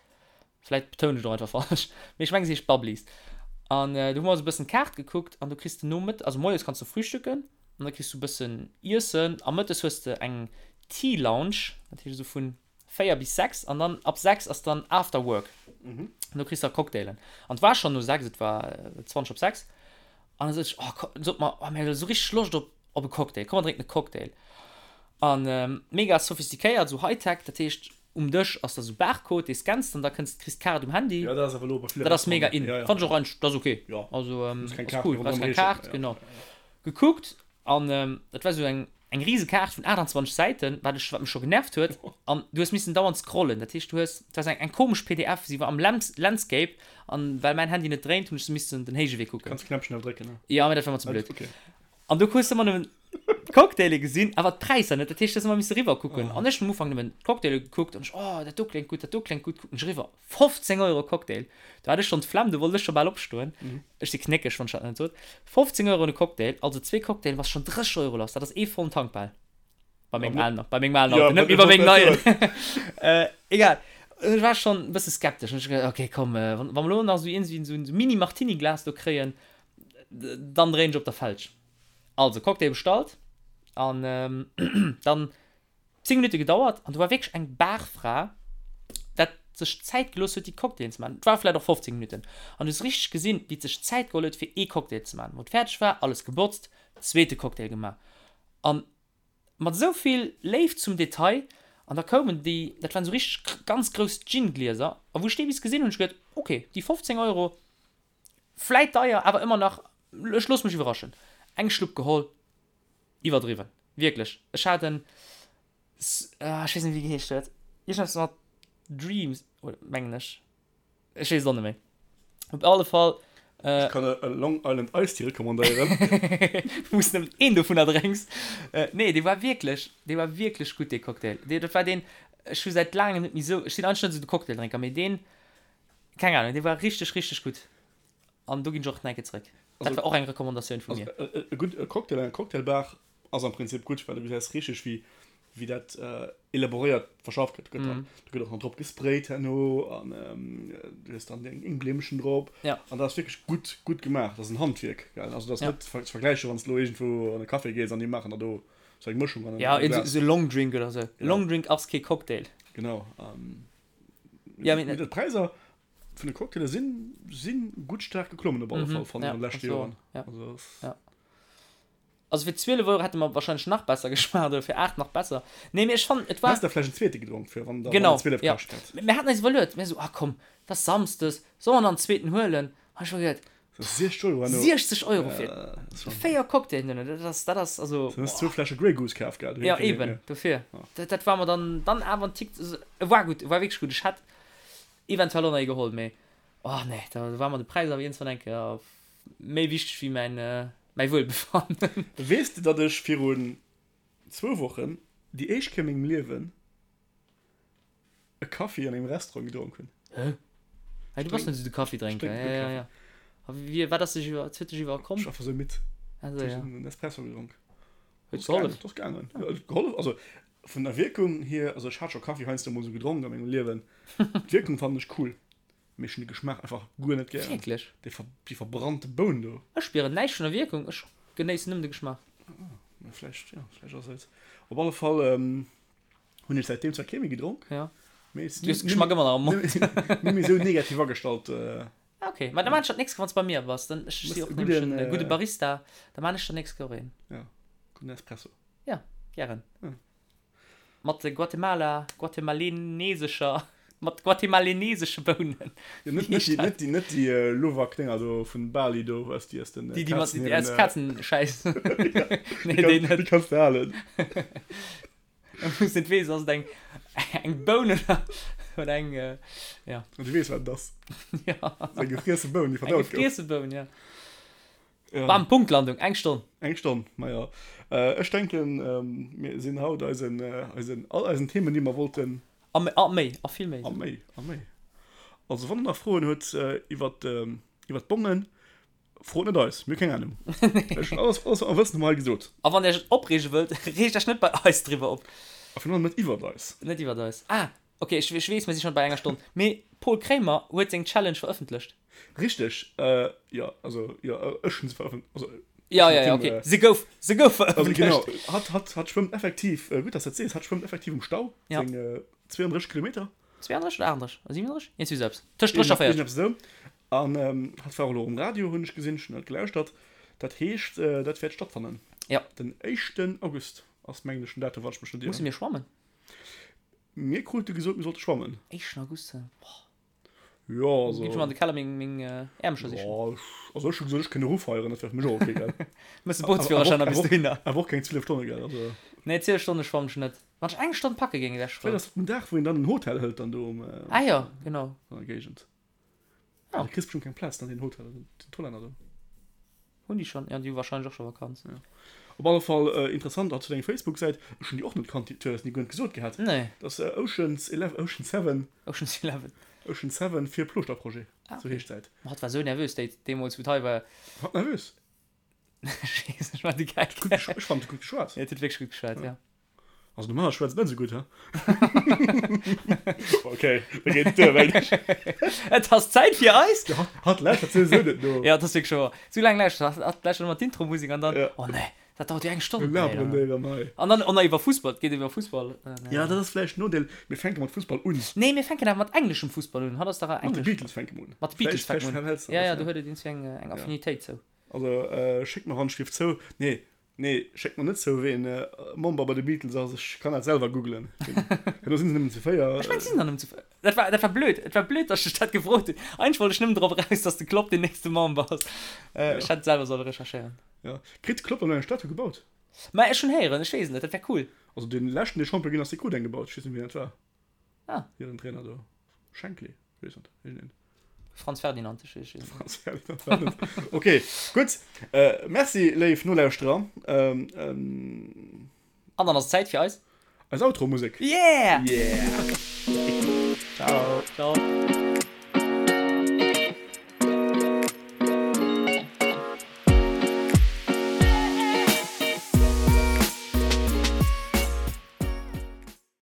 Vläit betounen ech et och einfach falsch, mee ech mengen se heescht Bubblies. An do hu mer eis e bëssen d'Kaart gekuckt an do kriss de nomëtt, also moies kanns du frühstücken an da kriss du e bëssen Iessen a mëttes hues de eng Tea Lounge, dat heescht esou vun 4 bis 6 an dann ab 6 ass dann After Work. An do kriss de da Cocktailen. An et war schonn no 6, et war 20 op 6 an da sot ech, oh komm, sot mer, oh mir hu esou richteg Loscht op op e Cocktail, komm mer drénken e Cocktail. An mega sophistiquéiert, esou Hightech, dat heescht um Dësch ass da sou Barcode, dee scanns de an da kënns kriss d'Kaart um Handy. Jo, dat ass awer elo bei ville Dat ass mega in. Ja, ja. Fannt ech och eigentlech, dat ass ok. Jo. Also Muss keng ass Kaart cool, méi brauchs ronderëm keng reechen. Kaart, genau. Gekuckt an dat war sou eng eng rise Kaart vun 28 Säiten, wat ech wat mech scho genervt huet an du hues missen dauernd scrollen, dat heescht du hues, et war sou eng eng komesch pdf, si war am Landscape an well mäin Handy net dréint, hunn ech se missen den héije Wee kucken. Kanns Knäppchen awer drécken, ne? Jo, mee dat war mer ze blöd. Okay. An do hues de ëmmer nëmmen d'Cocktaile gesinn, awer d'Präisser net. Dat heescht, du hues ëmmer misse riwwer kucken. An ech hunn am Ufank nëmmen d'Cocktaile gekuckt an ech, oh, dat do kléngt gutt, dat do kléngt gutt, kucken ech eriwwer, 15 Euro Cocktail. Do hat ech schonn d'Flemm, do wollt ech scho bal opstoen. Ech si knéckeg, wann ech dat net sot. 15 Euro de Cocktail, also zwee Cocktaile bass schonn 30 Euro lass. Dat ass ee vollen Tank bal. Bei mengem alen, bei mengem alen Auto, net méi bei mengem neien. Egal. Ech war schonn e bësse skeptesch. An ech gesot, okay, komm, wa mer elo nach esou iergendwéi esou en Mini-Martini-Glas do kréien, Dann dréien ech op der Felg. Also Cocktail bestallt an dann 10 Minutte gedauert an do war wierklech eng Barfra, dat sech Zäit gelooss huet déi Cocktailen ze maachen. Et war vläit och 15 Minutten an du hues richteg gesinn, wéi et sech Zäit geholl huet fir ee Cocktail ze maachen. Wou et fäerdeg war, alles gebotzt, zweete Cocktail gemaach an mat esou vill Léift zum Detail an da koumen déi, dat waren esou richteg ganz grouss Gin-Glieser a wou ech déi bis gesinn hunn, hunn ech geduet, ok, déi 15 Euro, Vläit deier, awer ëmmer nach, ech loosse mech iwwerraschen. Eng Schlupp geholl, iwwerdriwwen, wierklech. Ech hat en, ech weess net wéi geheescht huet, iergendeppes mat Dreams, mengen ech, ech weess et och net méi. Op alle Fall. Ech kann e Long Island Iced Tea recommandéieren. Wou s nëmmen een dovunner drénks. Nee, dee war wierklech, dee war wierklech gutt, dee Cocktail. Dee, dat war deen, ech hu säit laangem net méi esou, ech sinn eigentlech net esou de Cocktaildrénker, mee deen, Keng Ahnung, dee war richteg richteg gutt an do ginn ech och nach eng Kéier zréck. Dat war och eng Recommandatioun vu mir. Also e gutt e Cocktail an enger Cocktailbar ass am Prinzip gutt, well du gesäis richteg wéi wéi dat elaboréiert verschafft gëtt. Gëtt dann do gëtt och nach drop gesprayt herno an du hues dann deng Glimmchen drop an dat ass wierklech gutt gutt gemaach. Dat ass en Handwierk, gell. Also dat ass net ze vergläichen, wann s de elo iergendwou an e Café gees an déi maachen der do sou eng Mëschung an engem Glas. Jo, esou e Longdrink oder sou. E Longdrink ass kee Cocktail. Genau. Ja, mee d'Präisser vun de Cocktaile sinn sinn gutt staark geklommen op alle Fall fannen ech an de leschte Joren. Ja. Also, ja. Also fir 12 Euro hätte mer wahrscheinlech nach besser geschmaacht oder fir 8 nach besser. Nee, mee ech fannen et war. Häss der vläicht en zweete gedronk fir wann der genau, 12 ja. kascht hätt. Mir haten eis iwwerluet, mir sou, ah komm, et ass Samsdes, solle mer nach en zweeten huelen? An ech hu geduet, 60 Euro herno. 60 Euro fir 4 Cocktailen duerno, dat ass, dat ass also. Du hues zwou Fläsche Grey Goose kaf, gell? Jo, eben, dofir. Dat, dat war mer dann, dann awer en Tick, e war gutt, e war wierklech gutt. Ech hätt eventuell och nach ee geholl, mee oh nee, da war mer de Präis awer iergendwann eng Kéier méi wichteg wéi mäin, mäi Wuelbefannen. Weess de, datt ech virun zwou Wochen déi éischt Kéier a mengem Liewen e Kaffi an engem Restaurant gedronk hunn. Hä? Hey, du bass net esou de Kaffidrénker. Ech drénken guer Ja, ja, ja. A wie, wat ass dech iwwer, wat huet dech iwwerkomm? Ech war einfach sou midd. Also, ja. Ech hunn en Espresso gedronk. Huet gehollef? Et ass gaangen. Ja, et huet gehollef. Also, vun der Wierkung hier, also ech hat scho Kaffi heiansdo mol sou gedronk a mengem Liewen. D'Wierkung fannen ech cool, mee ech hunn de Geschmaach einfach guer net gären. Wierklech? Déi ver, déi verbrannte Boun do. Ech spieren näischt vun der Wierkung, ech genéissen nëmmen de Geschmaach. Ah, mä vläicht, ja, vläicht ass et. Op alle Fall, Hunn ech säitdeem zwar kee méi gedronk, Ja. mee Du hues de Geschmack ëmmer nach am Mond. Net méi esou negativ agestallt. Ah, okay. Ma da maan ech dat nächst Kéier, wann s bei mir bass. Dann, ech si och nämlech en gudde Barista, da maan ech der nächst Kéier och een. Ja, gudden Espresso. Ja, gären. Mat Guatemala, guatemalenesescher, mat guatemalenesesche Bounen. Jo, net, net déi, net déi, net déi Luwak-Dénger do vun Bali do, aus déi aus den Déi, déi mat, déi aus Kazenschäiss. Nee, déi net. Déi kanns de halen. Wou s net weess, ass et eng, eng Boun oder, oder eng, ja. Du weess, wat et ass. Ja. Eng gefriesse Boun, déi verdaut gouf. Eng gefriesse Boun, ja. Ja. Bam, Punktlandung, eng Stonn. Eng Stonn, maja. Ech denken, mir sinn haut eisen, eisen, all eisen Themen, déi mer wollten. A méi, a méi, a vill méi. A méi, a méi. Also, wann der nach Froen huet iwwert, iwwert d'Bongen, frot net eis, mir hu keng Anung. Ech hunn alles, alles wat mer wëssen, hu mer hei gesot. A wann der iech opreege wëllt, reegt iech net bei eis driwwer op. A virun allem net iwwert eis. Net iwwert eis. Ah, Ok, ech weess, mir si schonn bei enger Stonn, mee Paul Kremer huet seng Challenge verëffentlecht. Richteg, jo, also jo, ech hunn se verëffent, also Jo, jo, jo, ok, se gouf, se gouf verëffentlecht. Also genau, hatt, hatt, hatt schwëmmt effektiv, gutt, dass s de dat sees, hatt schwëmmt effektiv um Stau, seng 32 Kilometer. 32 oder 38? 37? Iergendwéi esou eppes, tëscht 30 a 40. Iergendeppes esou. An hatt war och elo um Radio, hunn ech gesinn, ech hunn dat gelauschtert. Dat heescht, dat wäert stattfannen. Jo. Den éischten August ass, mengen ech, den Datum, wann ech mech net ieren. Musse mir schwammen? Mir krute gesot, mir sollte schwammen. Éischten August, boah. Jo, also. Ginn ech mol an de Keller meng, meng Äermcher sichen. Jo, also ech hu gesot, ech kënn erofeieren, dat wär fir mech och ok, gell. Mëss de Bootsführerschäin a bis dohinner. Awer och keng 12 Stonne, gell, also. Nee, 12 Stonne schwammen ech net. Wann ech eng Stonn packe géing, wär ech frou. Vläicht ass dat den Dag, wou een dann en Hotel hëlt dann do um. Ah jo, genau. An der Géigend. Ja. Du kriss bestimmt keng Plaz an den Hotel, den Hollänner do. Hunn déi schon? Ja, déi hu wahrscheinlech och scho Vakanz. Ja. Op alle Fall äh, interessant, hat zu deng Facebook-Säit, ech hunn déi och net kannt, du hues ni guer net gesot gehat. Nee. Das äh, Oceans 11, Ocean 7. Oceans 11. Ocean 7 fir Plooschter-Projet, ah, okay. sou heescht d'Säit. Hatt war sou nervös déi, deemools, wou d'hei war. Hatt nervös? Ech weess, ech war de Geck. Ech fand, huet gutt geschwat. Ja, huet wierklech gutt geschwat, ja. ja. Also normaler schwätzt net sou gutt, he? Okay, da geet et duer, mengen ech. Et ass Zäit fir eis. Ja, hatt, hatt lauschtert souwisou net no. Ja, dat ass wierklech wouer. Sou laang lauschtert hatt, hatt lauschtert ëmmer d'Intro-Musek an dann, Ja. oh nee, dat dauert jo eng Stonn. Mir laberen déi erëm hei. An dann och nach iwwer Fussball, et geet iwwer Fussball. Ja, dat ass vläicht en Nodeel. Mir fänke mat Fussball un. Nee, mir fänken awer mat engleschem Fussball un. Hatt ass dach Mat de englesch. Beatles fänke mer un. Mat de Beatles fänke mer un. Ja, ja, do huet et iergendwéi eng, eng Affinitéit zou. Also, schéckt mer Handschrift zou. Nee, Nee, schéckt mer net zou ween Member bei de Beatles ass, ech kann dat selwer googlen. Herno sinn se nëmmen zu 4. Ech mengen, si sinn der nëmmen zu 4. Dat war, dat war blöd, et war blöd, datt ech dech dat gefrot hunn. Eigentlech wollt ech nëmmen drop eraus, datt de Klopp den nächste Member ass. Ech hätt et selwer solle recherchéieren. Jo. Kritt de Klopp dann elo eng Statue gebaut? Ma ech hunn héieren, ech weess et net, dat wär cool. Also dee leschten, dee Champion ginn ass, dee krut eng gebaut. Ech weess net, wien dat war. Ah. Hiren Trainer do. Shankly, ech weess net, iergendeen. Franz Ferdinand, ech weess net. Franz Ferdinand war net. Okay, gutt. Äh, merci, léif Nolauschterer. Ähm, ähm. An dann ass et Zäit fir eis. Eis Outro-Musek. Yeah! Yeah! Ciao. Ciao.